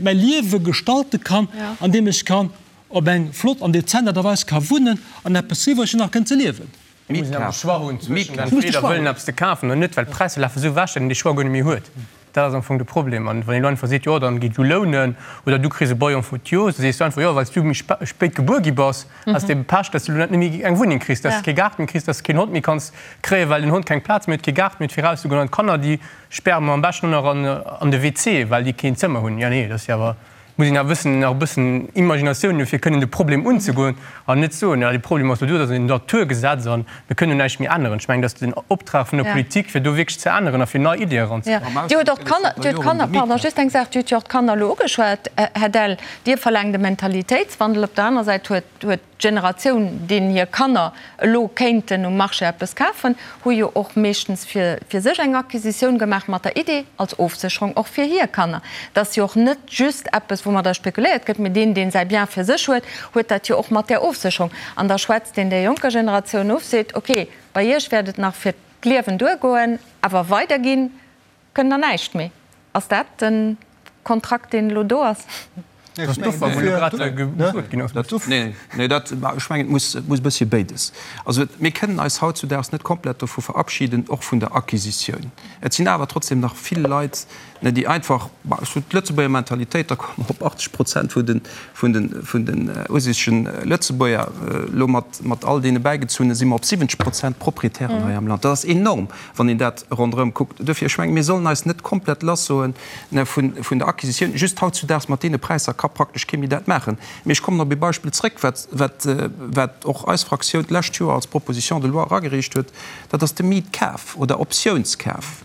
mäi Liewe gestalte kann, andeem ech kann op eng flott an dezent Aart a Weis ka wunnen an eppes iwwreg hunn nach kënnen ze liewen. Mir mussen awer de Choix hunn zwëschen entweder wëllen eppes ze kafen oder net, well d'Präisser lafe sou ewech, datt een dee Choix guer net méi huet. Dat ass am Fong de Problem. An wann een elo einfach seet, jo dann géi du lounen oder du kriss e Bail emphytéose, da sees du einfach, jo well s du méi spéit gebuer gi bass, has de ebe Pech, datt s du elo net méi eng Wunneng kriss, datt s de kee Gaart méi kriss, datt s de keen Hond méi kanns kréien, well den Hond keng Plaz méi huet, kee Gaart méi huet fir erauszegoen. An d'Kanner, déi späre mer am beschten och nach an de WC, well déi keen Zëmmer hunn. Jo nee, dat ass jo awer muss een awer bëssen nach e bëssen Imaginatioun hunn, fir kënnen de Problem unzegoen an net soen, jo, de Problem ass elo do, dat ass en Naturgesetz a mir kënnen do näischt méi änneren. Ech mengen, dat ass den Optrag vun der Politik, fir do wierklech ze änneren a fir nei Iddie eranzebréngen. Dir hutt och d'Kanner, Dir hutt d'Kanner, pardon, just eng Saach, Dir hutt jo och d'Kanner elo ugeschwat, Här Dell. Dir verlaangt e Mentalitéitswandel. Op der aner Säit huet, huet D'Generatioun, deenen hir Kanner elo kéinten um Marché eppes kafen, hu jo och meeschtens fir fir sech eng Acquisitioun gemaach mat der Idee, als Ofsécherung och fir hir Kanner. Dat ass jo och net just eppes, woumadder spekuléiert gëtt, mee deen, deen säi Bien fir sech huet, huet dat jo och mat där Ofsécherung. An da schwätzt een där jonker Generatioun of, seet, okay, bei iech wäert et nach fir d'Liewen duergoen, awer weiderginn Kënnt der näischt méi? Ass dat den Kontrakt deen elo do ass? Dat d'Offer wou elo grad gesot ginn ass. Nee, nee, dat, ech mengen, et muss, et muss e bëssche béides. Also mir kënnen eis hautzudaags net komplett dovu verabschieden, och vun der Acquisitioun. Et sinn awer trotzdem nach vill Leit, ne, déi einfach, bah, ech soen, d'Lëtzebuerger Mentalitéit, da komme mer op 80 Prozent vun den, vun den, vun den ursicegen Lëtzebuerger, elo mat, mat all deene Bäigezunne si mer op 70 Prozent Proprietären hei am Land. Dat ass enorm. wann een dat ronderëm kuckt. Duerfir, ech mengen, mir sollen eis net komplett lassoen vun der Acquisitioun. Just hautzudaags mat deene Präisser ka praktesch kee méi dat maachen. Mee ech kommen op ee Beispill zrëck, wat, wat, wat och eis Fraktioun d'lescht Joer als Proposition de loi eragereecht huet, dat ass de Mietkaf oder Optiounskaf.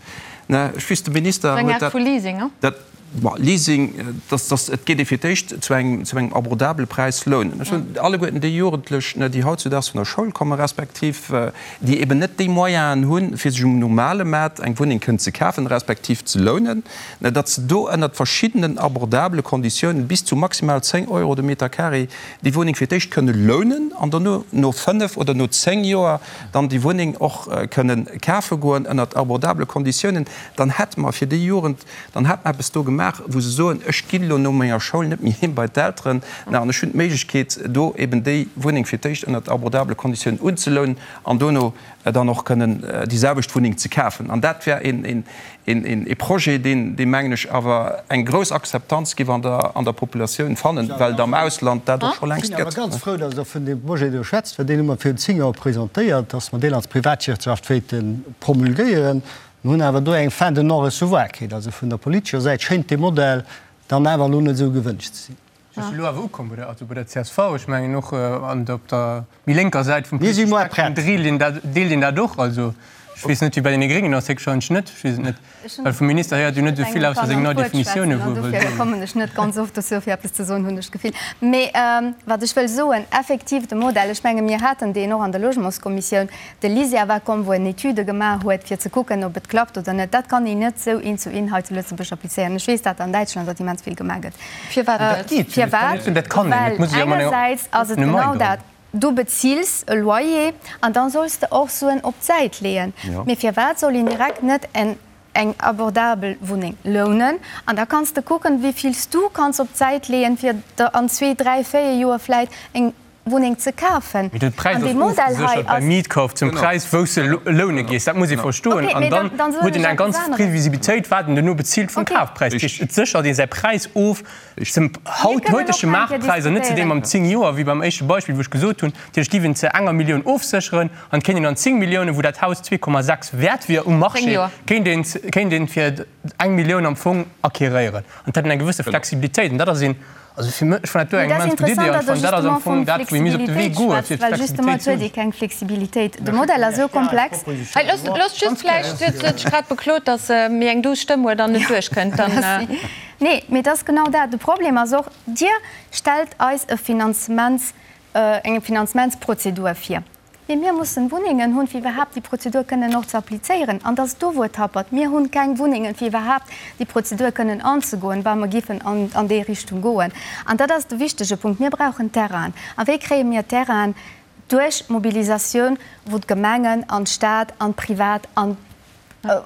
Ech weess, de Minister huet dat. Eng Aart vu Leasing, he? Bon, Leasing, dass, dass, et geet ee fir d'éischt zu engem, zu engem abordabele Präis lounen. Ech hunn alleguerten déi Jugendlech, ne, déi hautzudaags vun der Schoul kommen, respektiv déi eben net déi Moyenen hunn, fir sech um normale Maart eng Wunneng kënnen ze kafen, respektiv ze lounen, ne, datt se do ënnert verschiddenen abordabele Konditiounen bis zu maximal 10 Euro de Meter carré déi Wunneng fir d'éischt kënne lounen an dono no fënnef oder no 10 Joer dann déi Wunneng och kënnen kafe goen ënnert abordabele Konditiounen. Dann hätte mer fir déi Jugend Dann hat mer eppes do gemaach, wou se soen, ech ginn elo no menger Schoul net méi heem bei d'Elteren, mä an ech hunn d'Méiglechkeet, do eben déi Wunneng fir d'éischt ënnert abordabele Konditiounen unzelounen an dono dann och kënnen déi selwecht Wunneng ze kafen. An dat wär ee Projet, deen, dee mengen ech, awer eng grouss Akzeptanz géif an der, an der Populatioun fannen, well et am Ausland dat och scho längst gëtt. Ech sinn awer ganz frou, dass Der vun deem Projet do schwätzt, well deen hu mer virun 10 Joer presentéiert, dass mer deen als Privatwirtschaft wéilte promulguéieren. Mir hunn awer do eng Fin de non-recevoir kritt. Also vun der politescher Säit schéint dee Modell dann awer elo net esou gewënscht ze sinn. Ass elo awer ukomm bei der, also bei der csv. Ech mengen och an der, op der méi lénker Säit vum politesche Spektrum deelt een dat, deelt een dat och. Also ech weess net, wéi bei deene Gréngen ass, héchstwahrscheinlech net, ech weess et net, well vum Minister héiert een jo net esou vill ausser seng nei Definitioune wou e wëll soen. Kommen ech net ganz oft dozou fir eppes ze soen, hunn ech d'Gefill. Mee wat ech wëll soen, effektiv de Modell, ech menge mir haten deen och an der Logementskommissioun, De LISER war komm, wou en Etüde gemaach huet, fir ze kucken, ob et klappt oder net. Dat kann een net esou eent zu eent hei zu Lëtzebuerg applizéieren. Ech weess, dat an Däitschland dat immens vill gemaach gëtt. Firwat net? Firwat? Well engersäits ass et genau dat, Du bezils e Loyer an da solls de och Suen op d'Säit leeën. Mee firwat soll een direkt net en eng abordabel Wunneng lounen an da kanns de kucken, wéi vill s du kanns op d'Säit leeën, fir der an zwee, dräi, véier Joer vläit eng Wunneng ze kafen. Mee de Präis ass ofgeséchert beim Mietkauf zum Präis, wou s de loune gees. Dat muss ee verstoen. An dann huet een eng ganz Previsibilitéit, wat en duerno bezilt vum Kafpräis. Dat heescht, et séchert ee säi Präis of zum haut heutege Maartpräis an net zu deem am 10 Joer, wéi beim éischte Beispill, wou ech gesot hunn. Dat heescht, giff een zu enger Millioun ofsécheren an et kéint een an 10 Milliounen, wou dat Haus 2,6 wäert wier um Marché, kéint een kéint een fir eng Millioun am Fong acquéréieren. An et hätt een eng gewësse Flexibilitéit. An dat ass een Also fir mech, ech fannen dat do eng immens gutt Idee an ech fannen dat ass am Fong dat, wou ee misst op de Wee goen, fir d'Flexibilitéit ze hunn. Keng Flexibilitéit. De Modell ass esou komplex. Hei, loosst, loosst just vläicht, si huet sech grad beklot, datt se méi eng duuss Stëmm huet an net duerchkënnt. Dann. Nee, mee et ass genau dat. De Problem ass och, Dir stellt eis e Finanzements, eng Finanzementsprozedur vir. Mee mir mussen Wunnengen hunn, fir iwwerhaapt déi Prozedur kënnen och ze applizéieren. An et ass do, wou et happert. Mir hunn keng Wunnengen, fir iwwerhaapt déi Prozedur kënnen anzegoen, wa mer giffen an déi Richtung goen. An dat ass de wichtege Punkt. Mir brauchen Terrainen. A wéi kréie mir Terrainen? Duerch Mobilisatioun, wou d'Gemengen an d'Stad an d'Privat an.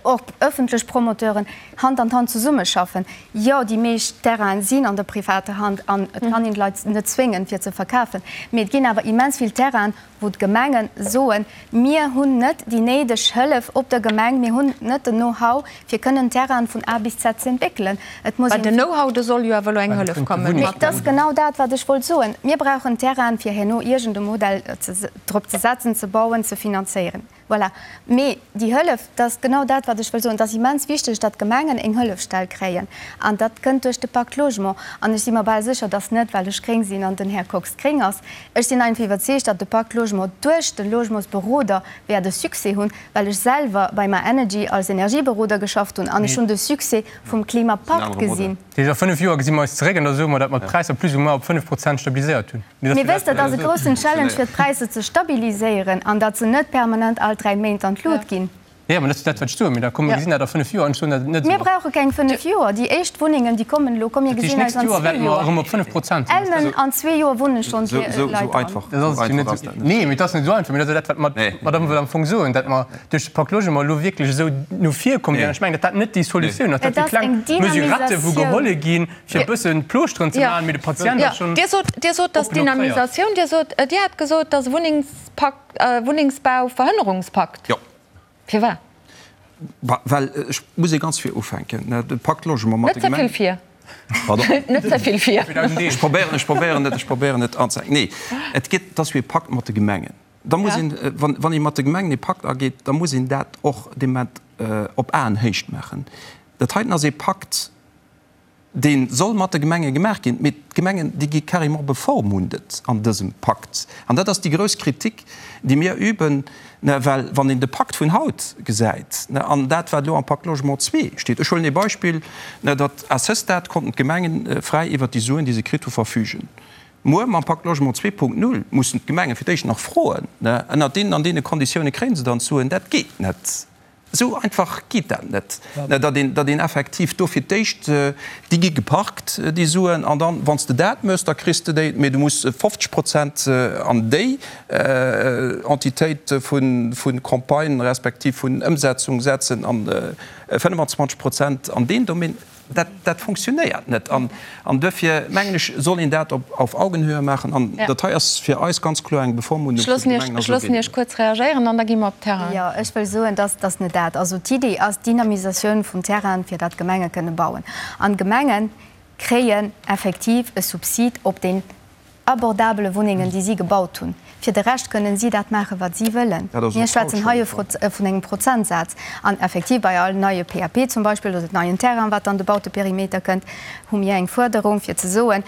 Och ëffentlech Promoteuren Hand an Hand zesummeschaffen. Jo, déi meescht Terrainen sinn an der privater Hand an et kann een d'Leit net zwéngen, fir ze verkafen. Mee et ginn awer immens vill Terrainen, wou d'Gemenge soen, Mir hunn net déi néideg Hëllef op der Gemeng, mir hunn net den Know-how, fir kënnen Terrainen vun A bis Z ze entwéckelen. Et muss een. Bei den Know-how, do soll jo awer elo eng Hëllef kommen. Mee et ass genau dat, wat ech wollt soen. Mir brauchen Terrainen, fir herno iergend e Modell drop ze setzen, ze bauen, ze finanzéieren. Voilà. Mee déi Hëllef, dat ass genau dat, wat ech wëll soen, et ass immens wichteg, datt d'Gemengen eng Hëllefstell kréien. An dat kënnt duerch de Pacte Logement. An ech si mer bal sécher, datt net, well ech gréng sinn an den Här Kox gréng ass. Ech sinn einfach iwwerzeegt, datt de Pacte Logement duerch de Logementsberoder wäert e Succès hunn, well ech selwer bei myEnergy als Energieberoder geschafft hunn an ech hunn de Succès vum Klimapakt gesinn. Dat heescht, a fënnef Joer gesi mer eis zeréck an da soe mer, datt mer d'Präisser plus ou moins op 5 Prozent stabiliséiert hunn. Mee wësst Der, et ass e groussen Challenge fir d'Präisser ze stabiliséieren an datt se net permanent all 3 Méint an d'Lut ginn. Jo, mä dat ass dat, wat ech soen. Mee da komm, mir gesinn dat a fënnef Joer an ech soen, datt et net esou Mir ass. brauche keng fënnef Joer. Déi éischt Wunnengen, déi kommen elo. Komm, mir Dat heescht, gesinn eis d'nächst an Joer zwee wäerte mer Joer. erëm op 5 Prozent sinn. Elmen, an zwee Joer wunne schonn Esou Leit dran. einfach Dat ass jo net ass dat net. Nee, mee et ass net esou einfach. Mee dat ass jo dat, wat mer, wat mer am Fong soen, datt mer duerch de Pacte Logement elo wierklech esou no vir komm sinn. An ech mengen, datt dat net déi Solutioun ass. Dat Et si ass kleng eng Mesurette, wou Dynamisatioun. geholle ginn, fir e bëssen Plooschteren ze maachen, mee de Patient ass schonn Dir sot, Dir sot, dass oppen opréiert. Dynamisatioun, Dir sot, Dir hat gesot, dass Wunnengspakt, Wunnengsbauverhënnerungspakt. Jo. Firwat? Well ech muss ee ganz vir ufänken. De Pacte Logement mat de Net ze Gemengen. vill vir. Pardon? Net ze vill vir. Ech probéieren, ech probéieren et, ech probéieren et anzehänken. Nee, et geet, et ass jo ee Pakt mat de Gemengen. Da muss een, wann, wann ee mat de Gemengen ee Pakt ageet, da muss een dat och dee Moment op Aenhéicht maachen. Dat heiten ass ee Pakt, dee soll mat de Gemenge gemaach ginn, mee d'Gemengen, déi gi carrément bevormundet an dësem Pakt. An dat ass déi grouss Kritik, déi mir üben, well wann een de Pakt vun haut gesäit an dat, wat elo am Pacte Logement ii steet, ech huelen ee Beispill, datt à ce stade konnten d'Gemengen fräi iwwert déi Suen, déi se kritt hu, verfügen. Muer mam Pacte Logement 2.0 mussen d'Gemenge fir d'éischt nach froen, ënnert deenen an deene Konditioune kréie se dann d'Suen. Dat geet net. Esou einfach geet dat net, datt een, datt een effektiv do fir d'éischt, déi gi geparkt, déi Suen, an dann, wann s de dat méchs, da kriss de déi, mee du muss 50 Prozent an déi Entitéit vu Campagne respektiv vun Ëmsetzung setzen an 25 Prozent an deen Domaine. Dat, dat funktionéiert net. An, an duerfir, mengen ech, soll een dat op, auf Augenhöhe maachen. An ja. dat hei ass fir eis ganz kloer eng Bevormundung vun de Gemengen. Ech loossen Iech kuerz reagéieren an da gi mer op Terrain. Jo, ech wëll soen, dass dass net dat. Also d'Idee ass d'Dynamisatioun vum Terrain, fir datt d'Gemenge kënne bauen. An d'Gemenge kréien effektiv e Subsid op deen abordabele Wunnengen, déi si gebaut hunn. Fir de Rescht kënnen si dat maachen, wat si wëllen. Mir schwätzen hei vun engem Prozentsaz. An effektiv, bei all neie PAP zum Beispill oder neien Terrain, wat an de Bauteperimeter kënnt, hu mir eng Fuerderung, fir ze soen,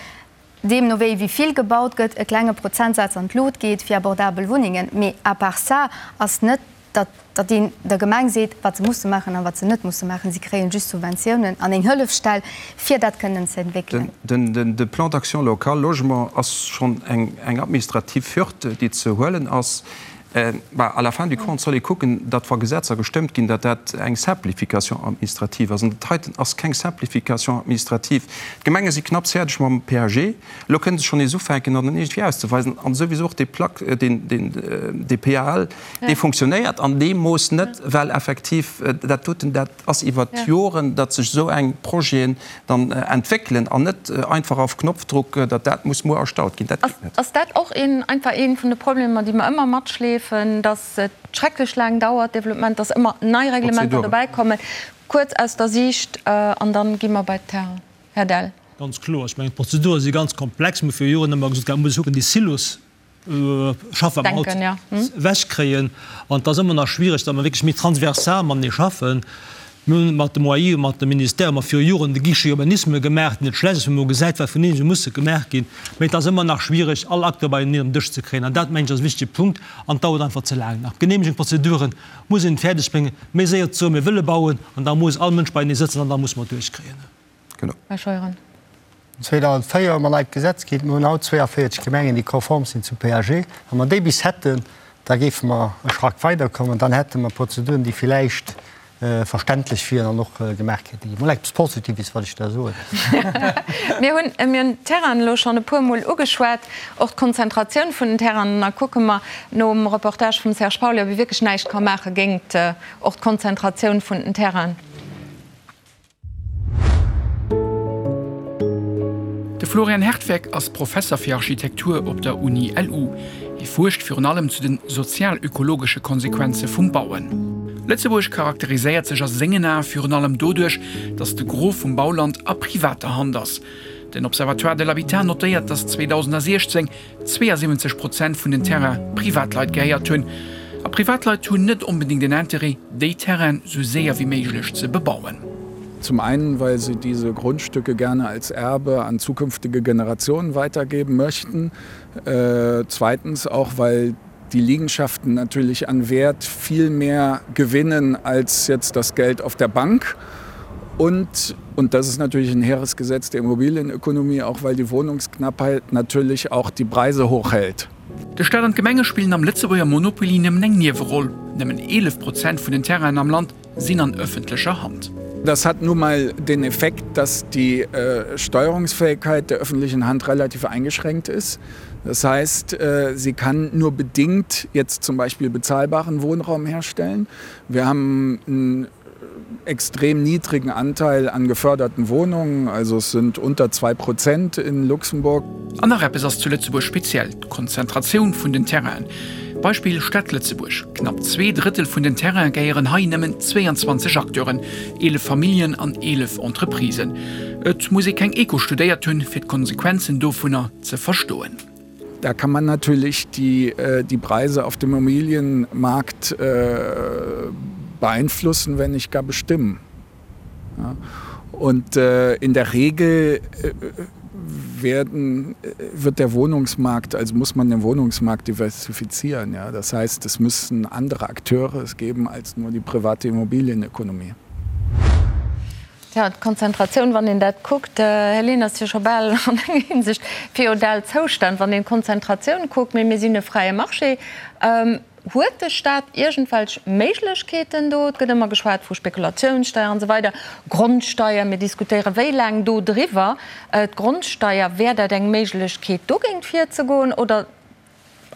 deemno wéi wéi vill gebaut gëtt, e klenge Prozentsaz an d'Lut geet fir abordabel Wunnengen. Mee à part ça ass net datt datt een der Gemeng seet, wat se musse maachen a wat se net musse maachen. Si kréien just Subventiounen an eng Hëllefstell, fir dat kënnen ze entwéckelen. De Plan d'action local logement ass schonn eng administrativ Hürd, déi ze huelen ass. Bah, à la fin du compte soll ee kucken, datt wa Gesetzer gestëmmt ginn, datt dat eng Simplification administrative ass. An dat heiten ass keng Simplification administrative. D'Gemenge si knapps fäerdeg mam PAG. Elo kënne se schonn nees ufänken, an dann iergendwéi auszeweisen. An souwisou och dee Plac, deen, deen, dee PAL, Dee funktionéiert an deem Mooss net, well effektiv dat doten, dat ass iwwert d'Joren, datt sech esou eng Projeten dann entwéckelen an net einfach auf Knopfdruck, datt dat muss muer erstallt ginn. Dat geet net. Ass dat och een, einfach ee vun de Problemer, déi mer ëmmer matschleefen, datt et schrecklech laang dauert, Développement, datt ëmmer nei Reglementer dobäikommen? Kuerz aus der Siicht an dann gi mer bei d'Terrain. Här Dell. Ganz kloer. Ech mengen, d'Prozedure si ganz komplex. Mir hu viru Joren ëmmer gesot, et muss ee kucken, déi Silos schaffen, wat mer haut ewechkréien. An et ass ëmmer nach schwiereg, datt mer wierklech méi transversal matenee schaffen. Mir hunn mat dem OAI, mat dem Ministère hu mer viru Joren de Guichet Urbanisme gemaach, deen net schlecht ass, wou mer gesäit, wat vun eenzele musse gemaach ginn. Mee et ass ëmmer nach schwiereg, all Acteur beieneen op den Dësch ze kréien. An dat, mengen ech, ass e wichtege Punkt. An et dauert einfach ze laang nach. D'Genehmegungsprozeduren muss een fäerdeg bréngen, méi séier ze soen, mir wëlle bauen, an da muss all Mënsch beienee sëtzen an da musse mer et duerchkréien. Genau. Här Scheuren. 2004 hu mer neit Gesetz kritt. Mir hunn haut 42 Gemengen, déi konform sinn zum PAG. Wa mer déi bis hätten, da géife mer e Schrack weiderkommen. Dann hätte mer Prozeduren, déi villäicht. verständlech wieren an och gemaach kéinte ginn. Mol eppes Positives, wat ech da soen. Mir hunn, mir hunn d'Terrainen elo schonn e puermol ugeschwat, och d'Konzentratioun vun den Terrainen. Da kucke mer nom Reportage vum Serge Pauly, ob ee wierklech näischt ka maache géingt och d'Konzentratioun vun den Terrainen. De Florian Hertweck ass Professer fir Architektur op der Uni LU. Hie fuerscht virun allem zu den sozial-ökologesche Konsequenze vum Bauen. Lëtzebuerg charakteriséiert sech a sengen Ae virun allem doduerch, datt de Gros vum Bauland a privater Hand ass. Den Observatoire de l'habitat notéiert, datt 2016 72 Prozent vun den Terraine Privatleit gehéiert hunn. A Privatleit hunn net onbedéngt en Interêt, déi Terraine sou séier wéi méiglech ze bebauen. Zum einen, weil sie diese Grundstücke gerne als Erbe an zukünftige Generationen weitergeben möchten. Zweitens auch, weil die Liegenschaften natürlich an Wert viel mehr gewinnen als jetzt das Geld auf der Bank. Und, und das ist natürlich ein hehres Gesetz der Immobilienökonomie, auch weil die Wohnungsknappheit natürlich auch die Preise hochhält. De Staat an d'Gemenge spillen am Lëtzebuerger Monopoly nëmmen eng Nieweroll. Nëmmen 11 Prozent vun den Terrainen am Land sinn an ëffentlecher Hand. Das hat nun mal den Effekt, dass die Steuerungsfähigkeit der öffentlichen Hand relativ eingeschränkt ist. Das heißt, sie kann nur bedingt jetzt zum Beispiel bezahlbaren Wohnraum herstellen. Wir haben einen extrem niedrigen Anteil an geförderten Wohnungen, also es sind unter 2 Prozent in Luxemburg. An nach eppes ass zu Lëtzebuerg speziell, d'Konzentratioun vun den Terrainen. Beispill Stad Lëtzebuerg, Knapp Zweedrëttel vun den Terraine gehéieren hei nëmmen 22 Acteuren, 11 Familljen an 11 Entreprisen. Et muss ee keng Eko studéiert hunn, fir d'Konsequenzen dovunner ze verstoen. Da kann man natürlich die, die Preise auf dem Immobilienmarkt beeinflussen, wenn nicht gar bestimmen. Ja. Und äh, in der Regel äh, werden, wird der Wohnungsmarkt, also muss man den Wohnungsmarkt diversifizieren. Ja. Das heißt, es müssen andere Akteure es geben als nur die private Immobilienökonomie. Tja, d'Konzentratioun, wann een dat kuckt, Här Lehn, ass jo scho bal an enger Hinsicht feudal Zoustand, wann een d'Konzentratioun kuckt. Mee mir sinn e fräie Marché. Huet de Stat iergendwelch Méiglechkeeten do? Et gëtt ëmmer geschwat vu Spekulatiounssteier an esou weider, Grondsteier. Mir diskutéiere wéi laang do driwwer. D'Grondsteier, wär dat eng Méiglechkeet, dogéint virzegoen? Oder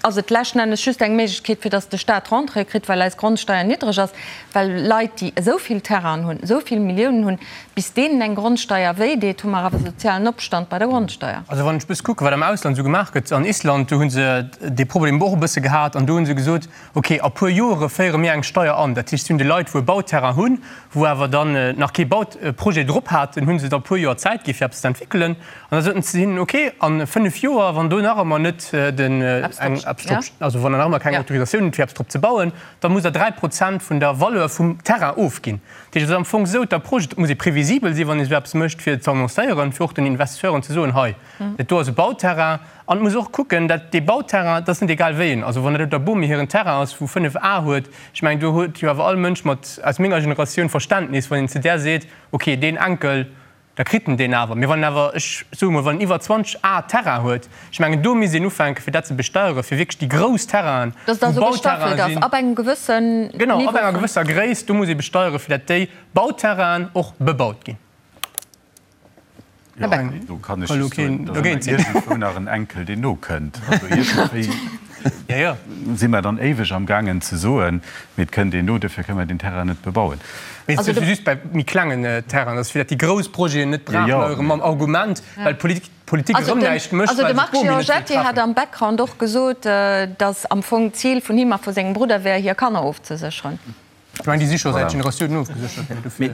ass et leschten Endes just eng Méiglechkeet, fir datt de Staat Rentrée kritt, well eis Grondsteier niddreg ass, well Leit, déi esou vill Terrainen hunn, esou vill Milliounen hunn, bis deenen eng Grondsteier wéi deet, hu mer awer sozialen Opstand bei der Grondsteier. Also wann ech e bësse kucken, wat am Ausland esou gemaach gëtt, an Island, do hu se dee Problem och e bësse gehat an do hu se gesot, okay, a puer Joere féiere mir eng Steier an. Dat heescht, si hunn de Leit, wou e Bauterrain hunn, wou awer dann nach kee Bauprojet drop haten, hu se da e puer Joer Zäit gi fir eppes ze entwéckelen. An da soten se hinnen, okay, a 5 Joer, wann do nach ëmmer net den, eng, eppes drop, also wann der nach ëmmer keng Autorisatioun hutt fir eppes drop ze bauen, da musst der 3 Prozent vun der Valeur vum Terrain ofginn. Dat heescht, et ass am Fong esou, d'Approche, et muss ee previsibel sinn, wann ee esou eppes mécht, fir et ze annoncéieren, fir och den Investisseuren ze soen, hei, dat do ass e Bauterrain. An et muss och kucken, dat dee Bauterrain, dat ass net egal wéi en, also wann dat op der Bomi hiren Terrain ass, wou 5 Ar huet, ech mengen, do huet jo awer all Mënsch mat, aus menger Generatioun Verständnis, wann een zu där seet, okay, deen Enkel, Da kritt en deen awer. Mee wann en awer, ech soe mol, wann en iwwer 20 Ar Terrain huet, ech mengen, do misst een ufänken, fir dat ze besteieren, fir wierklech déi grouss Terrainen, Dass et wou also gestaffelt Bauterrainen ass, sinn. ab engem gewëssen Genau, ab Niveau enger vun. gewësser Gréisst, do muss ee besteieren, fir dat déi Bauterrainen och bebaut ginn. Jo, do kann ech just soen, et ass ëmmer iergendwou nach en Enkel, deen nokënnt. Also iergendwéi si mer dann éiweg am gaangen ze soen, mee et kënnt een no, duerfir kënne mer deen Terrain net bebauen. Mee et ass just bei méi klengen Terrainen, dass fir dat déi grouss Projeten net brach leien mam Argument, well d'Politik erëm näischt mécht, Also well de se Marc d'Bomi net wëll Giorgetti hat treffen. am Background och gesot, dass am Fong d'Zil vun him a vu sengem Brudder wär, hir Kanner ofzesécheren. Ech mengen, déi si scho säit Generatiounen ofgeséchert ginn, dofir.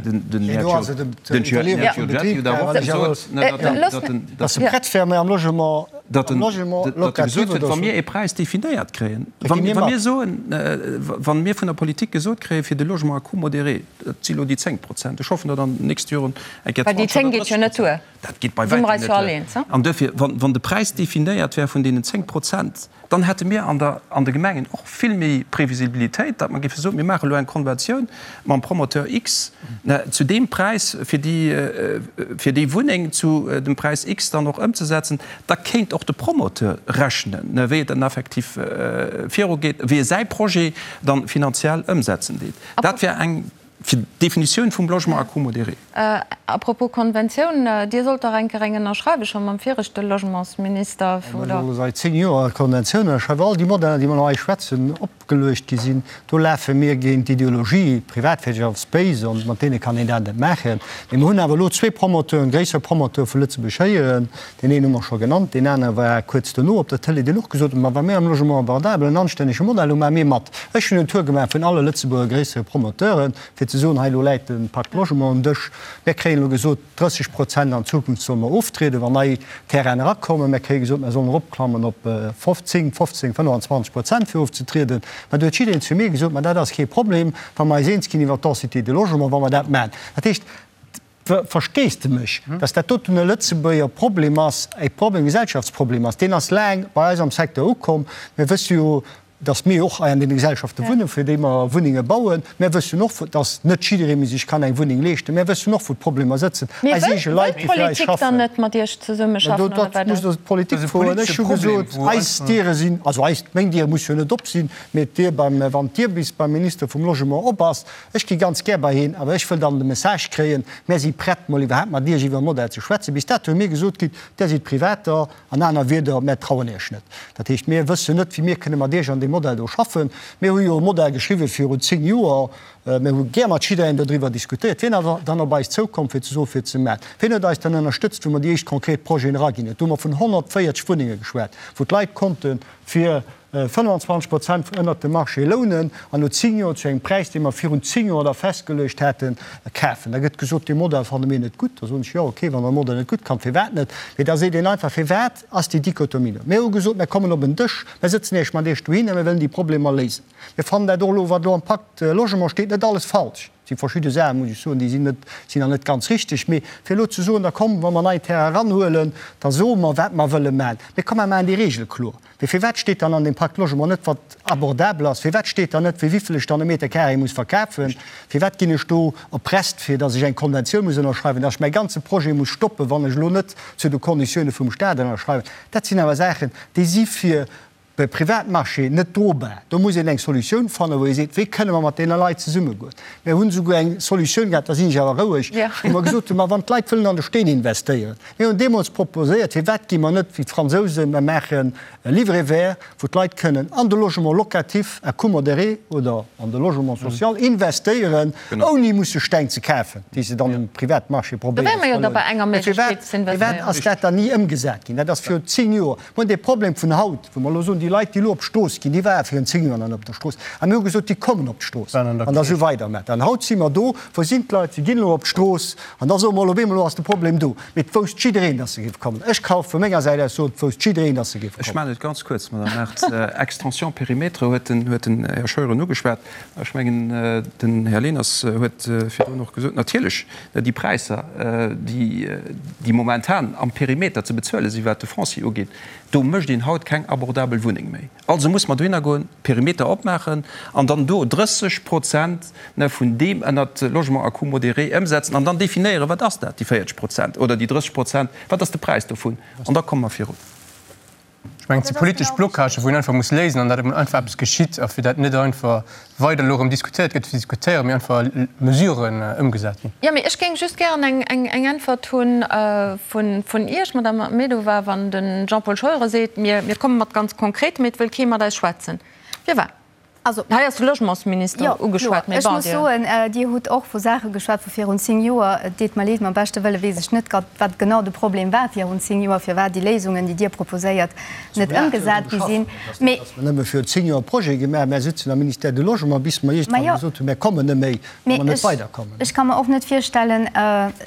Dass se prett wäre am Logement, am Logement locatif oder Wa mir ee Präis definéiert kréien, wa mir soen, wa mir vun der Politik gesot kréien, fir de Logement à coût modéré, dat si lo déi 10 Prozent, ech hoffen, datt an den nächste Joren eng Kéier Well déi 20 10 oder geet jo 30 net duer. Prozent, dat geet bei Si mer wäitem eis net jo all duer. eens, he? An duerfir, wann de Präis definéiert wär vun deenen 10 Prozent, Dann hätte mir an der, an de Gemengen och vill méi Previsibilitéit, datt mer géife soen, mir maache elo eng Konventioun mam Promoteur X zu deem Präis, fir déi, fir déi Wunneng zu dem Präis X dann och ëmzesetzen. Da kéint och de Promoteur rechnen, wéi et dann effektiv virugeet, wéi e säi Projet dann finanziell ëmsetzen deet. Dat wär eng. Fir d'Definitioun vum Logement à coût modéré. À propos Konventioun, Dir sollt dach eng Kéier eng ënnerschreiwen, scho mam viregte Logementsminister, oder? Mir solle seit 10 Joer Konventioun ënnerschreiwen. All déi Modeller, déi mer elo hei schwätzen, opgeluecht gi sinn, do lafe mir géint d'Ideologie, d'Privatwirtschaft ass béis an mat deene kann een dat net maachen. Mee mir hunn awer elo zwee Promoteuren, gréisser Promoteure vu Lëtzebuerg héieren, Deen een hu mer scho genannt, deen anere war kuerz dono op der Tëlee, deen och gesot huet, Ma wa mir am Logement abordable en anstännege Modell hunn, maache mir mat. Ech hunn en Tour gemaach vun alle Lëtzebuerger gréissere Promoteuren, fir ze soen, Hei, elo läit de Pacte Logement um Dësch. Mir kréien elo gesot, 30 Prozent an Zukunft solle mer oftrieden, wann nei Terrainen erakommen. Mir kréie gesot, mer sollen eropklammen op 10, 15, 25 Prozent fir ofzetrieden. Mä do huet jiddereen zu mir gesot, Ma dat ass kee Problem, wa mer eis eens ginn iwwert d'Densité de logement, wa mer dat maachen. Dat heescht, Versteesdemech, datt dat doten e Lëtzebuerger Problem ass, e Problem, e Gesellschaftsproblem ass. Deen ass laang bei eis am Secteur ukomm. Mir wësse jo, datt mir och hei an deene Gesellschafte wunnen, fir déi mer Wunnenge bauen. Mir wëssen och, datt net jidderee méi sech kann eng Wunneng leeschten. Mir wëssen och, wou d'Problemer sëtzen. Mee Eis wëll eege Leit, déi fir eis d'Politik dann schaffen. net mat Iech zesummeschaffen, Mä do, oder dat wat musst ass? Der d'Politik Dat ass e froen. Ech politesche hu Problem, gesot, wou eis einfach. Diere sinn, also eis, meng Dier muss jo net op sinn, mee d'Dier beim, wann d'Dier bis beim Minister vum Logement op ass, Ech gi ganz gär bei hien, awer ech wëll dann de Message kréien, Mär si prett, mol iwwerhaapt mat Iech iwwer e Modell ze schwätzen. Bis dato hu mir gesot kritt, Där sidd Privater, an aner Wierder, mär trauen Iech net. Dat heescht, mir wëssen net, wéi mir kënne mat Iech an deem Modell do schaffen. Mir hu jo e Modell geschriwwen virun 10 Joer. Mir hu gär mat jidderengem dodriwwer diskutéiert. Wien ass dann op eis zoukomm, fir ze soen, fir ze maachen? Wien huet eis dann ënnerstëtzt, wou mer déi éischt konkret Projeten eraginn hunn? Do hu mer vun 140 Wunnenge geschwat, wou d'Leit konnte fir 25 Prozent ënnert dem Marché lounen an no 10 Joer zu engem Präis, dee mer virun 10 Joer da festgeluecht haten, kafen. Da gëtt gesot, dee Modell fanne mir net gutt. Da soen ech, jo okay, wann der de Modell net gutt fannt, firwat net? Mee da seet een einfach, firwat ass déi Dichotomie do? Mir hu gesot, mir kommen op en Dësch, mir sëtzen Iech mat Iech dohin a mir wëllen déi Problemer léisen. Mir fannen dat och elo, wat elo am Pacte Logement steet, net alles falsch. Et si verschidde Saachen, muss ech soen, déi sinn net, sinn nach net ganz richteg. Mee fir elo ze soen, da komm, wa mer nei Terrain eranhuelen, da soe mer, wat mer wëlle maachen. Mee komm, mer maachen déi Regele kloer. Mee firwat steet dann an deem Pacte Logement net, wat abordabel ass? Firwat steet dann net, fir wéivill ech dann e Meter carré muss verkafen? Firwat ginn ech do erpresst, fir datt ech eng Konventioun muss ënnerschreiwen, datt ech mäi ganze Projet muss stoppen, wann ech elo net zu de Konditioune vum Stat ënnerschreiwen? Dat sinn awer Saachen, déi si fir De Privatmarché net drobar. Do muss een eng Solutioun fannen, wou ee seet, wéi kënne mer mat deene Leit zesummegoen. Mir hunn esouguer eng Solutioun gehat, da sinn ech awer roueg, wou mer gesot hunn, ma wann d'Leit wëllen an de Steen investéieren, mir hunn deemools proposéiert, firwat gi mer net wéi d'Fransousen, mer maachen e Livret vert, wou d'Leit kënnen an de Logement locatif à coût modéré oder an de Logement social investéieren, ouni musse Steng ze kafen, déi se dann um Privatmarché probéieren ze verlounen. Mä firwat, firwat ass dat dann ni ëmgesat ginn? Dat ass virun 10 Joer. Mir hunn dee Problem vun haut, wou mer elo soen, déi Leit, déi elo op d'Strooss ginn, déi ware virun 10 Joer nach net op der Strooss. A mir hu gesot, déi kommen op d'Strooss an da sou weider. Mä dann haut si mer do, wou sinn d'Leit? Si ginn elo op d'Strooss an da soe mer elo op eemol, elo ass de Problem do. Mee et wousst jiddereen, datt se géif kommen. Ech ka vu menger Säit aus soen, et wousst jiddereen, datt se géif Ech kommen. maachen et ganz kuerz, Madame Mart. Extension périmètre huet den, huet den Här Scheuren ugeschwat. Ech mengen, den Här Leners huet virdrun och gesot, natierlech, Déi Präisser, déi momentan am Perimeter ze bezuele sinn, wat de Foncier ugeet, do mécht een haut keng abordabel Wunneng méi. Also muss mer dohinner goen, Perimeter opmaachen an dann do 30 Prozent vun deem ënnert Logement à coût modéré ëmsetzen an dann definéieren, wat ass dat, déi 40 Prozent oder déi 30 Prozent, wat ass de Präis dovun an da komme mer virun. Ech mengen, et si politesch Blocagen, wou een einfach muss léisen an datt emol einfach eppes geschitt a fir dat net einfach weider elo erëm diskutéiert gëtt fir ze diskutéieren, mee einfach Mesuren ëmgesat ginn. Jo, mee ech géing just gären eng Äntwert hu vun Iech, Madamm Ahmedova, wann de Jean-Paul Scheuren seet, mir komme mat ganz Konkretem, mee et wëll kee mat eis schwätzen. Firwat? Also, Hei ass de Logementsminister jo, ugeschwat, kloer. mee Ech bon, muss Dir. soen, Dir hutt och vu Saache geschwat vu virun 10 Joer. Et deet mer leed, mam beschte Wëlle weess ech net grad, wat genau de Problem war virun 10 Joer, firwat déi Léisungen, déi Dir proposéiert, net ëmgesat gi sinn. Mee. Dass mer nëmme virun 10 Joer e Projet gemaach hunn. Mär sitzen am Ministère du Logement, bis mer iergendwann gesot hunn, mär kommen net méi, wa mer net weiderkommen. Ech ka mer och net virstellen,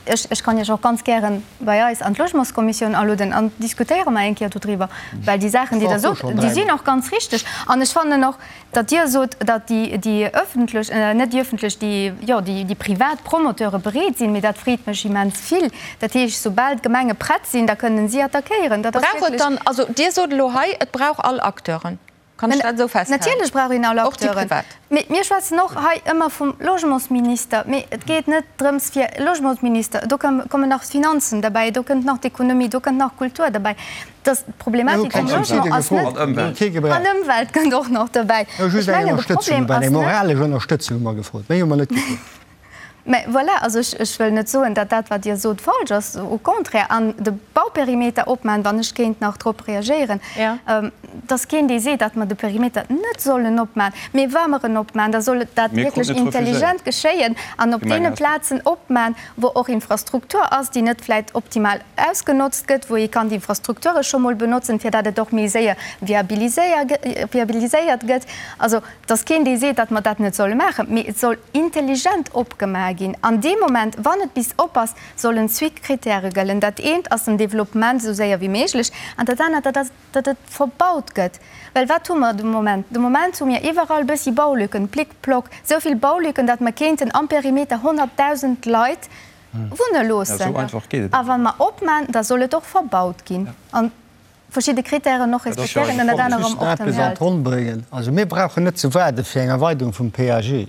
ech, ech kann Iech och ganz gären bei eis an d'Logementskommissioun alueden an diskutéiere mer eng Kéier dodriwwer, well déi Saachen, déi Der sot, déi sinn och ganz richteg. An ech fannen och, datt Dir sot, datt déi, déi öffentlech, net déi öffentlech, déi, jo, déi, déi privat Promoteure bereet sinn, mee dat freet mech immens vill. Dat heescht, soubal d'Gemenge prett sinn, da kënnen si attackéieren. Dat ass Brauch et wierklech. dann, also Dir sot elo hei, et brauch all Acteuren. Kann ech dat esou festhalen? Natierlech brauch een all Och déi Acteuren. privat. Mee mir schwätzen och hei ëmmer vum Logementsminister. Mee et geet net drëms fir Logementsminister, do kommen nach d'Finanzen derbäi, do kënnt nach d'Ekonomie, do kënnt nach d'Kultur derbäi. Dass d'Problematik vum Logement ass net. An Ëmwelt kënnt och nach derbäi. Ech hu just eng Ënnerstëtzung, eng moralesch Ënnerstëtzung hu mer gefrot. Méi hu mer net gefrot. Mä voilà, also ech, ech wëll net soen, datt dat, wat Dir sot, falsch ass, au contraire. An de Bauperimeter opmaachen, wann ech kéint nach drop reagéieren, et ass keen, dee seet, datt mer de Perimeter net sollen opmaachen. Mee wa mer en opmaachen, da soll dat wierklech intelligent geschéien an op deene Plazen opmaachen, wou och Infrastruktur ass, déi net vläicht optimal ausgenotzt gëtt, wou ee kann d'Infrastrukture scho mol benotzen, fir datt et och méi séier viabiliséiert gëtt. Also, Et ass keen, dee seet, datt mer dat net solle maachen, mee et soll intelligent opgemaach ginn. An deem Moment, wann et bis op ass, sollen zwee Kritäre gëllen. Dat eent ass den Développement esou séier wéi méiglech an dat anert, dat ass, datt et verbaut gëtt. Well wat hu mer de Moment? De Moment hu mir iwwerall e bëssi Baulücken, plic ploc, esou vill Baulücken, datt mer kéinten am Perimeter 100.000 Leit wunne loossen. A wa mer opman, da soll et och verbaut ginn. An verschidde Kritären och respektéieren, ënnert anerem och den Just eppes an d'Ronn bréngen. Also mir brauchen net ze waarde fir eng Erweiterung vum PAG.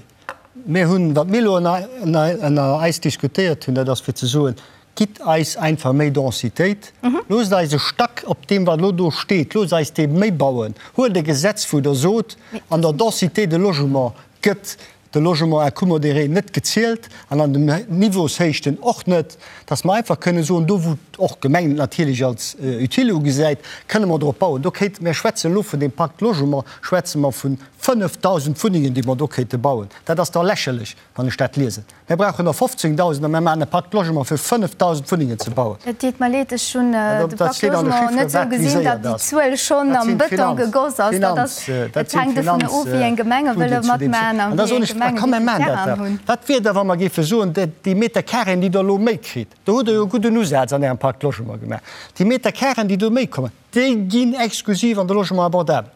Mir hunn, wat mir elo ënner eis diskutéiert hunn, dat ass fir ze soen, Gitt eis einfach méi Densitéit, loosst eis e Stack op deem, wat elo do steet, loosst eis dee méi bauen. Huelt e Gesetz, wou Der sot, an der Densité de logement gëtt de Logement à coût modéré net gezielt an an den Niveaushéichten och net, dass mer einfach kënnen soen, do wou och d'Gemeng et natierlech als utile ugesäit, kënne mer drop bauen. Do kéinte, mir schwätzen elo vun deem Pacte Logement, schwätze mer vu 5.000 Wunnengen, déi mer do kéinte bauen. Dat ass da lächerlech, wann ech dat liesen. Mir brauchen der 15.000 a mir maachen e Pacte Logement fir 5.000 Wunnengen ze bauen. Et deet mer leed, ech hunn de Pacte Logement net esou gesinn, datt déi Zuel schonn am Bëton gegoss ass. Dat ass, et hänkt dovun of, wéi eng Gemenge wëlle matmaachen a wéi eng Gemenge wéi vill Terrainen hunn. Wat wier da, wa mer géife soen, déi Metercarréen, déi Der elo méi kritt, do hutt Der jo e gudden Usaz an Ärem Pacte Logement gemaach, déi Metercarréen, déi do méi kommen, déi ginn exklusiv an de Logement abordable.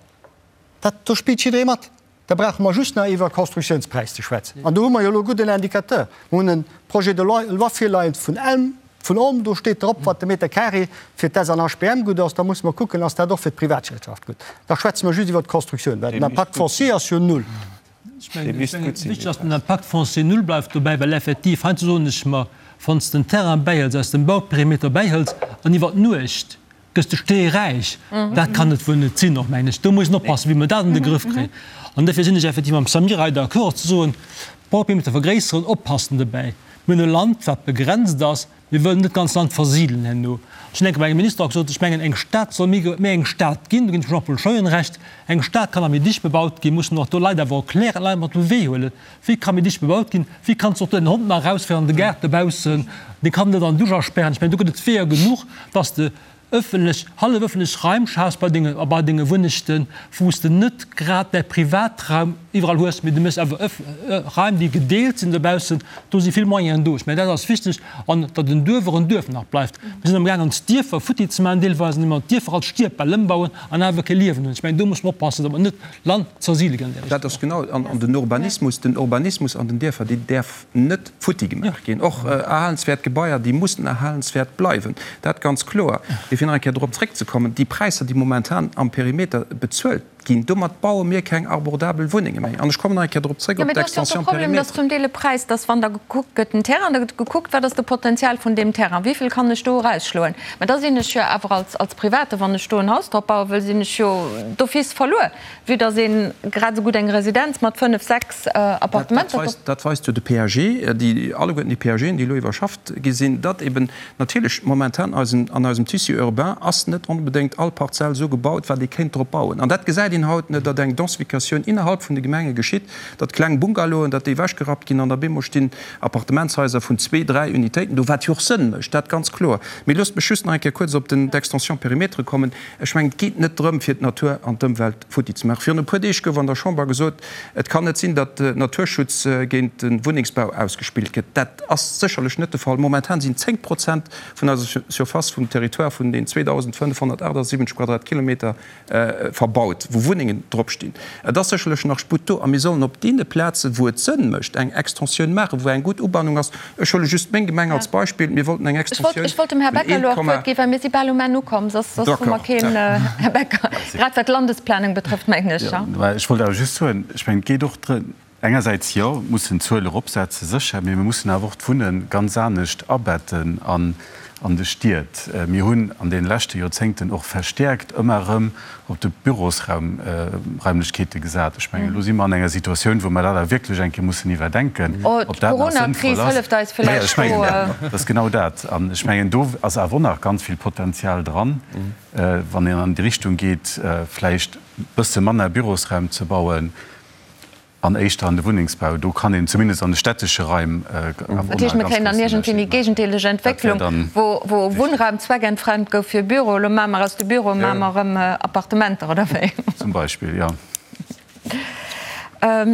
Dat, do spillt jidderee mat. Da brauche mer just nach iwwer Constructiounspräis ze schwätzen. An do hu mer jo elo e gudden Indicateur. Mer hunn e Projet de loi virleien vun Elm, vun Olm, do steet drop, wat de Meter carré fir d'S an HBM gutt ass. Da musse mer kucken, ass dat och fir d'Privatwirtschaft gutt. Da schwätze mer just iwwer d'Constructioun, well den Impact foncier ass jo null. Ech mengen, wichteg ass, den Impact foncier null bleift dobäi, well effektiv, heiansdo soen ech mer, wann s de den Terrain bäihëls, aus dem Bauperimeter bäihëls an iwwer d'Nuecht Gëss de steeräich? Dat kann et wuel net sinn, och mengen ech. Do muss een oppassen, wéi mer dat an de Grëff kréien. An dofir sinn ech effektiv mam Samir hei d'accord, ze soen, Bauperimeter vergréisseren, oppassen dobäi. Mir hunn e Land, wat begrenzt ass. Mir wëllen net d'ganz Land versidelen herno. Ech hunn enke bei engem Minister och gesot, ech mengen, eng Stad soll méi méi eng Stad ginn, do ginn ech dem Jean-Paul Scheuren Recht, eng Stad kann nach méi dicht bebaut ginn, mussen och do Leit awer erklären, Leit mat op de Wee huelen, wéi ka méi dicht bebaut ginn, wéi kanns de och den Hond nach erausféieren an de Gaart dobaussen, dee kann net an d'Dusch aspären. Ech mengen, do gëtt et Weeër genuch, dass de ëffentlech, hallef ëffentlech Raim schafs bei denge, a bei denge Wunnechten, wou s de net grad däi Privatraum iwwerall hues, mee du méchs awer ëff, Raim, déi gedeelt sinn dobaussen. Do si vill Moyenen do. Ech mengen, dat ass wichteg. An datt en Duerf och en Duerf nach bleift. Mir sinn amgaangen, ons Dierfer futti ze maachen deelweis, indem mer d'Dierfer als Stierbäll ëmbauen an awer kee Liewen hunn. Ech mengen, do muss mer oppassen, datt mer net Land zersidele ginn an där Richtung. Dat ass genau, an den Urbanismus, den Urbanismus an den Dierfer, deen däerf net futti gemaach ginn. Och erhalenswäert Gebaier, déi mussen erhalenswäert bleiwen, dat ganz kloer. Mee fir nach eng Kéier dorop zréckzekommen, déi Präisser, déi momentan am Perimeter bezuelt ginn, domat baue mir keng abordabel Wunnenge méi. An ech kommen nach eng Kéier dorop zréck, Jo, op mee do ass jo och de d'Extension Problem, dass périmètre. zum Deel e Präis, dass wann da gekuckt gëtt, den Terrain, da gëtt gekuckt, wat ass de Potenzial vun deem Terrain, wéivill kann ech do erausschloen. Mä da sinn ech jo awer als, als Private, wann ech do en Haus drop baue wëll, sinn ech jo d'office verluer, vue dass ee grad esou gutt eng Residenz mat 5, 6 Appartementer drop. Dat weist jo de PAG, déi, alleguerten déi PAGen, déi elo iwwerschafft gi sinn, datt eben natierlech momentan eisen, an eisem Tissu urbain ass net onbedéngt all Parzell esou gebaut, wat ee kéint drop bauen. An dat gesäit een haut net, datt eng Densificatioun innerhalb vun de Gemenge geschitt, datt kleng Bungalowen, datt déi ewechgerappt ginn an op eemol stinn Appartementshaiser vun zwee, dräi Unitéiten do, wat jo och Sënn mécht, dat ganz kloer. Mee loosst mech just nach eng Kéier kuerz op den, d'Extension périmètre kommen. Ech mengen, et geet net drëm, fir d'Natur an d'Ëmwelt futti ze maachen. Virun e puer Deeg gouf an der Chamber gesot, et kann net sinn, datt Naturschutz géint de Wunnengsbau ausgespillt gëtt. Dat ass sécherlech net de Fall. Momentan sinn 10 Prozent vun eiser Surface vum Territoire vun den 2.578 Quadratkilometer verbaut, wou Wunnengen drop stinn. Et ass sécherlech nach Sputt do a mir sollen op deene Plazen, wou et Sënn mécht, eng Extensioun maachen, wou eng gutt Ubannung ass. Ech huele just meng Gemeng als Beispill. Mir wollten eng Ech wollt, Extensioun ech wollt dem Här vun Becker elo och d'Wuert ginn, well mir si bal um Enn ukomm, soss, soss hu mer D'accord. keen, Här Becker, grad wat d'Landesplanung betrëfft, mengen ech, ja. Ech wollt awer just soen, ech mengen, et geet och drëm, Engersäits jo, mussen d'Zuel eropsetzen, sécher, mee mir mussen awer och d'Wunne ganz anescht abetten. An. an de Stied. Mir hunn an deene leschte Joerzéngten och verstäerkt ëmmer erëm op de Bürosraumraimlechkeete gesat. Ech mengen, elo si mer an enger Situatioun, wou mer dat awer wierklech eng Kéier mussen iwwerdenken, ob dat nach sënnvoll ass. Majo, ech mengen, dat ass genau dat. An ech mengen, do ass awer och nach ganz vill Potenzial dran, wann een an déi Richtung geet, vläicht e bësse manner Bürosraum ze bauen, An éischter an de Wunnengsbau, do kann een zumindest an de städtesche Raim awer och nach Dat heescht, mir ganz kréien dann grouss iergendwéi déi Ënnerscheed maachen. géigendeeleg Dat wär Entwécklung, dann wou wou wichteg. Wunnraum zweckentfremd gouf fir Büro, elo maache mer aus de Büroe maache mer erëm Appartementer, oder wéi? Zum Beispill, jo.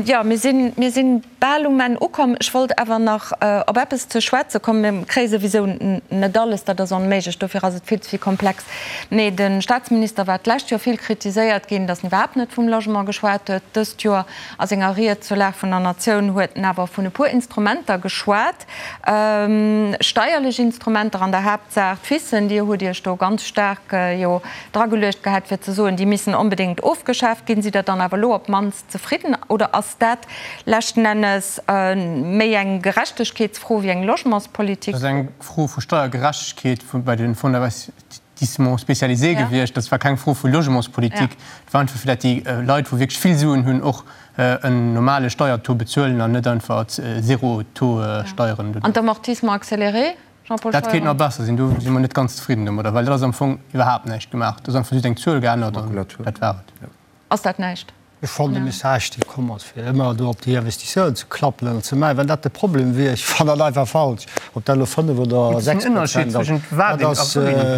Jo, mir sinn, mir sinn bal um Enn ukomm. Ech wollt awer nach op eppes ze schwätze kommen. Mir kréie souwisou net alles, dat ass onméiglech, dofir ass et vill ze vill komplex. Nee, de Staatsminister war d'lescht Joer vill kritiséiert ginn, datt en iwwerhaapt net vum Logement geschwat huet. Dëst Joer a senger Ried zur Lag vun der Natioun huet en awer vun e puer Instrumenter geschwat, steierlech Instrumenter an der Haaptsaach d'FISen. Dir hutt Iech do ganz staark jo drageluecht gehat, fir ze soen, déi missen onbedéngt ofgeschaaft ginn. Sidd Der dann awer elo op d'mannst zefridden oder ass dat leschten Ennes méi eng Gerechtegkeetsfro wéi eng Logementspolitik? Dat ass eng Fro vu Steiergerechtegkeet bei de Fonds d'investissement spécialisé gewiescht. Dat war keng Fro vu Logementspolitik. Et war einfach, fir datt déi Leit, wou wierklech vill Suen hunn, och en normale Steiertaux bezuelen an net einfach Zero-Taux Steieren. An d'Amortissement accéléré, Jean-Paul Dat kéint Scheuren? nach besser sinn. Do si mer net ganz zefridden domadder, well dat ass am Fong iwwerhaapt näischt gemaach. Do ass einfach just eng Zuel geännert an dat war et. Ass dat näischt? Ech fannen de Message, dee komm ass, fir ëmmer do op déi Investisseuren ze klappelen an ze maachen, wann dat de Problem wier, ech fannen dat einfach falsch, ob dat elo 5 oder 6 Prozent ass, dat ass,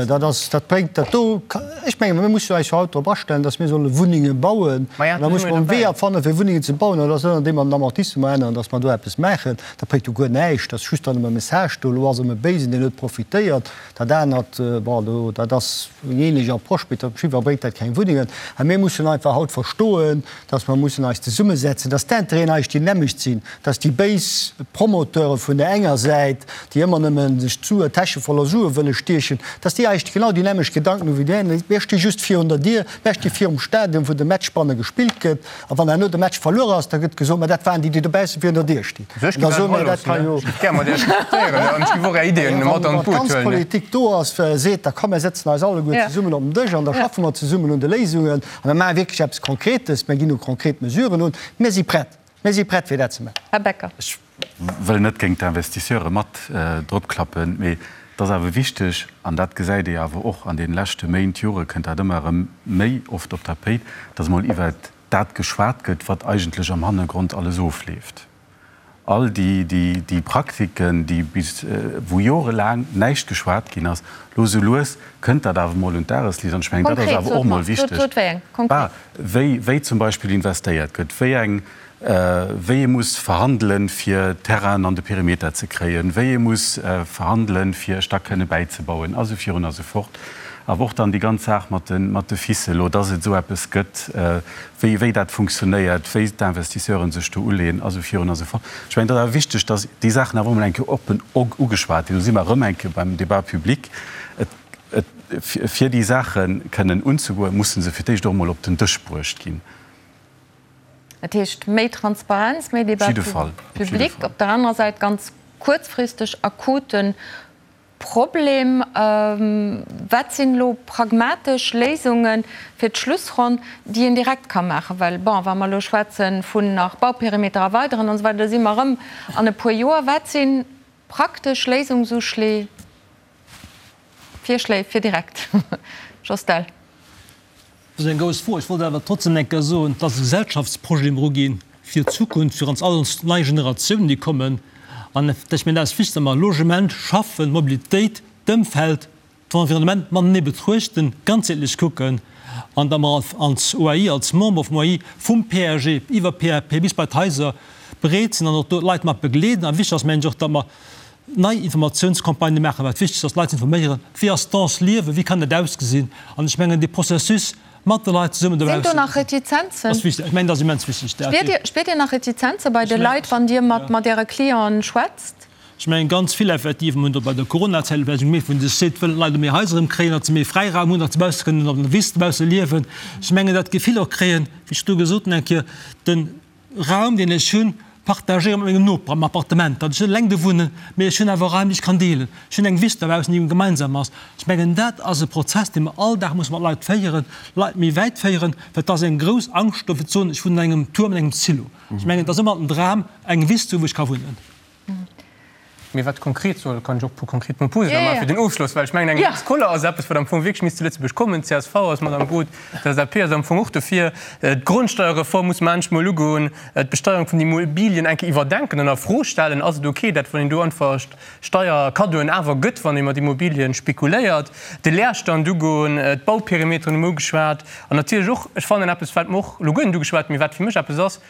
dat ass, dat bréngt dat do, ech menge mir mussen eis jo haut drop astellen, datt mir solle Wunnenge bauen an da muss mer e Weeër fannen, fir Wunnengen ze bauen an dat ass net andeem mer den Amortissement änneren, datt mer do eppes maachen, dat bréngt jo guer näischt, dat ass just dann ëm e Message do, elo ass erëm e Béisen, deen huet profitéiert. Dat anert, bon, do, dat ass eng ähnlech Approche, mee op jiddwer Fall bréngt dat keng Wunnengen. A mir mussen einfach haut verstoen, dass mer mussen eis zesummesetzen, dass d'Intérêten eis déi nämmlecht sinn, dass déi béis Promoteure vun der enger Säit, déi ëmmer nëmme sech d'Sue, d'Täsche voller Sue wëlle stiechen, dass déi eis genau déi nämmlecht Gedanken hu wéi déi aner. Mir sti just virun der Dier, mir sti virum Stadion, wou de Match banne gespillt gëtt. A wann herno de Match verluer ass, da gëtt gesot, ma dat waren déi, déi dobausse virun der Dier stinn. An da soe mir, dat ka jo. Wann d'ganz Politik do ass, seet, da komm, mir sëtzen eis alleguer zesummen op den Dësch an da schaffe mer zesummen un de Léisungen a mir maache wierklech eppes Konkretes, mir ginn u konkret Mesuren un. Mir si prett, mir si prett, fir dat ze maachen. Här Becker. Ech wëll net géint d'Investisseure mat dropklappen, mee et ass awer wichteg, an dat gesäit ee awer och an deene leschte Méint, Jore kënnt dat ëmmer erëm méi oft op d'Tapéit, dass emol iwwert dat geschwat gëtt, wat eigentlech am Hannergrond alles ofleeft. All déi, déi, déi Praktiken, déi bis, wou jorelaang näischt geschwat ginn ass, elo sou lues kënnt dat awer emol un d'Dagesliicht. An ech mengen, dat ass Konkret, awer sot och emol mer, sot, wichteg. sot wéi eng, konkret. Bah, wéi, wéi zum Beispill investéiert gëtt, wéi eng, wéi ee muss verhandelen, fir Terrainen an de Perimeter ze kréien, wéi ee muss verhandelen, fir e Stack kënne bäizebauen, a sou virun a sou fort. Awer och dann déi ganz Saach mat de, mat de FICE elo, dass et esou eppes gëtt, wéi, wéi dat funktionéiert, wéi d'Investisseuren sech do uleeën, a sou virun a sou fort. Ech mengen, et ass awer wichteg, dass déi Saachen awer och emol eng Kéier oppen ugeschwat ginn. Do si mer erëm eng Kéier beim Débat public. Et, et, fir déi Saache kënnen unzegoen, musse se fir d'éischt och emol op den Dësch bruecht ginn. Dat heescht, méi Transparenz, méi Débat public, op der anerer Säit ganz kuerzfristeg akuten Problem. Wat sinn elo pragmatesch Léisunge fir d'Schlussronn, déi een direkt ka maachen? Well, bon, wa mer elo schwätze vun nach Bauperimeter erweideren an esou weider, da si mer erëm an e puer Joer. Wat si praktesch Léisungsuschléi, Virschléi fir direkt? Jos Dell. Dat ass eng grouss Fro. Ech wollt awer trotzdem eng Kéier soen, et ass e Gesellschaftsprojet, dee mer uginn, fir d'Zukunft, fir ons all ons nei Generatiounen, déi kommen. An ech mengen, dat ass wichteg, datt mer Logement, Schaffen, Mobilitéit, d'Ëmfeld, d'Environnement matenee betruechten, ganzheetlech kucken an datt mer als OAI, als Member vum OAI, vum PAG iwwer PAP bis bei d'Haiser bereet sinn an och do d'Leit mat begleeden. A wichteg ass, mengen ech, och, datt mer nei Informatiounscampagnë maachen, wat wichteg ass, d'Leit ze informéieren, wéi ass dense Liewen, wéi kann dat ausgesinn. An ech mengen, dee Processus mat de Leit zesummen Sinn do dobaussen nach Retizenzen? ass wichteg. Ech mengen, dat ass immens wichteg. Dat Spiert Dir, spiert Dir nach Retizenze bei de Leit, wann Dir mat, mat Äre Clienten schwätzt? Ech mengen, ganz vill effektiv, mir hunn dat bei der Coronazäit vläicht gemierkt, wou een sech seet, wëllen d'Leit méi Haiser erëm kréien, datt se méi Fräiraum hunn, datt se bausse kënnen op der Wiss dobausse liewen. Ech mengen, dat Gefill och kréien, wéi ech do gesot hunn eng Kéier, de Raum, deen ech hunn. partagéiere mat mengem Noper am Appartement, datt ech net eleng do wunnen, mee ech hunn awer Raim, déi ech kann deelen. Ech hunn eng Wiss dobaussen, déi gemeinsam ass. Ech mengen, dat ass e Prozess, dee mer all Dag musse mat Leit féieren, Leit méi wäit féieren, well et ass eng grouss Angscht do, fir ze soen, ech wunnen an engem Tuerm, an engem Silo. Ech mengen, et ass ëmmer den Dram, eng Wiss ze hunn, wou ech ka wunnen. Mee wat konkret soll, kann ech och e puer konkret Proposen da maachen fir den Ofschloss, well ech mengen, eng Lex Koller ass eppes, wat am Fong wierklech misst zu Lëtzebuerg kommen. D'CSV ass mat am Boot, d'LSAP ass am Fong och dofir. D'Grondsteierreform muss mer endlech mol ugoen, d'Besteierung vun den Immobilien eng Kéier iwwerdenken an a Fro stellen. Ass et ok, dat wann een do einfach Steierkaddoen awer gëtt, wann ee mat Immobilien spekuléiert? De Leerstand ugoen, d'Bauperimeteren hu mer ugeschwat an natierlech och, ech fannen eppes, wat mer och elo guer net ugeschwat hunn, mee wat fir mech eppes ass,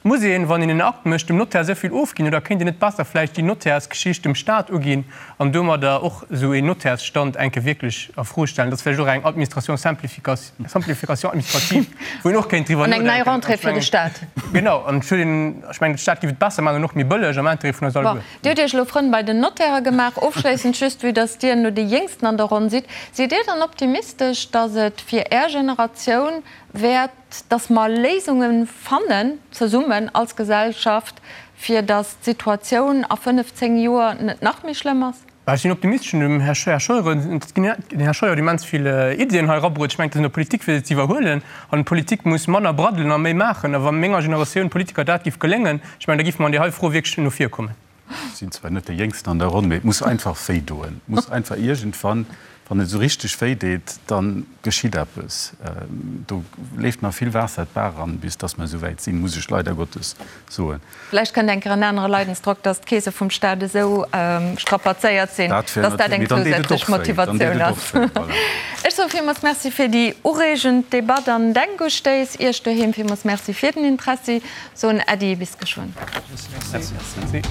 Muss een, wann een en Akt mécht, dem Notaire esou vill ofginn oder kéint een net besser vläicht déi Notairsgeschicht dem Staat uginn an domadder och esou een Notairsstand eng Kéier wierklech a Fro stellen? Dat ass vläicht och eng Administration simplification, simplification administrative, wou een och kéint driwwer An eng nei nodenken. Rentrée fir de Staat. Genau, an ech hunn, ech mengen, de Staat géif et besser maachen an och méi bëlleg am Intérêt vun eis Bon, alleguer. Dir hutt Iech elo Frënn bei den Notairen gemaach. Ofschléissend just, vue dass Dir no déi Jéngsten an der Ronn sidd, sidd Dir dann optimistesch, dass et fir Är Generatioun wäert, dass mer Léisunge fannen, zesummen als Gesellschaft, fir dass d'Situatioun a 5, 10 Joer net nach méi schlëmm ass? Ech sinn optimistesch. Dem Här Scheuer, den Här Scheuer huet immens vill Iddien hei erabruet. Ech mengen, et ass un der Politik, fir se ze iwwerhuelen. An d'Politik muss manner braddelen a méi maachen. A wa menger Generatioun Politiker dat géif geléngen, ech mengen, da géife mer an där hei Fro wierklech no vir kommen. Ech sinn zwar net dee Jéngsten an der Ronn, mee et muss einfach wéi doen. Et muss einfach iergendwann, wann et esou richteg wéi deet, da geschitt eppes. Do leeft nach vill Waasser d'Baach eran, bis dass mer esou wäit sinn, muss ech leider Gottes soen. Vläicht kënnt eng Kéier en anere Leidensdrock, dass d'Keese vum Staat esou strapazéiert sinn, dass dat eng zousätzlech Motivatioun ass. Ech soe villmools Merci fir déi ureegend Debatt an Denkustéiss. Iech doheem villmools Merci fir den Interessi. Soen Äddi, bis geschwënn. Merci.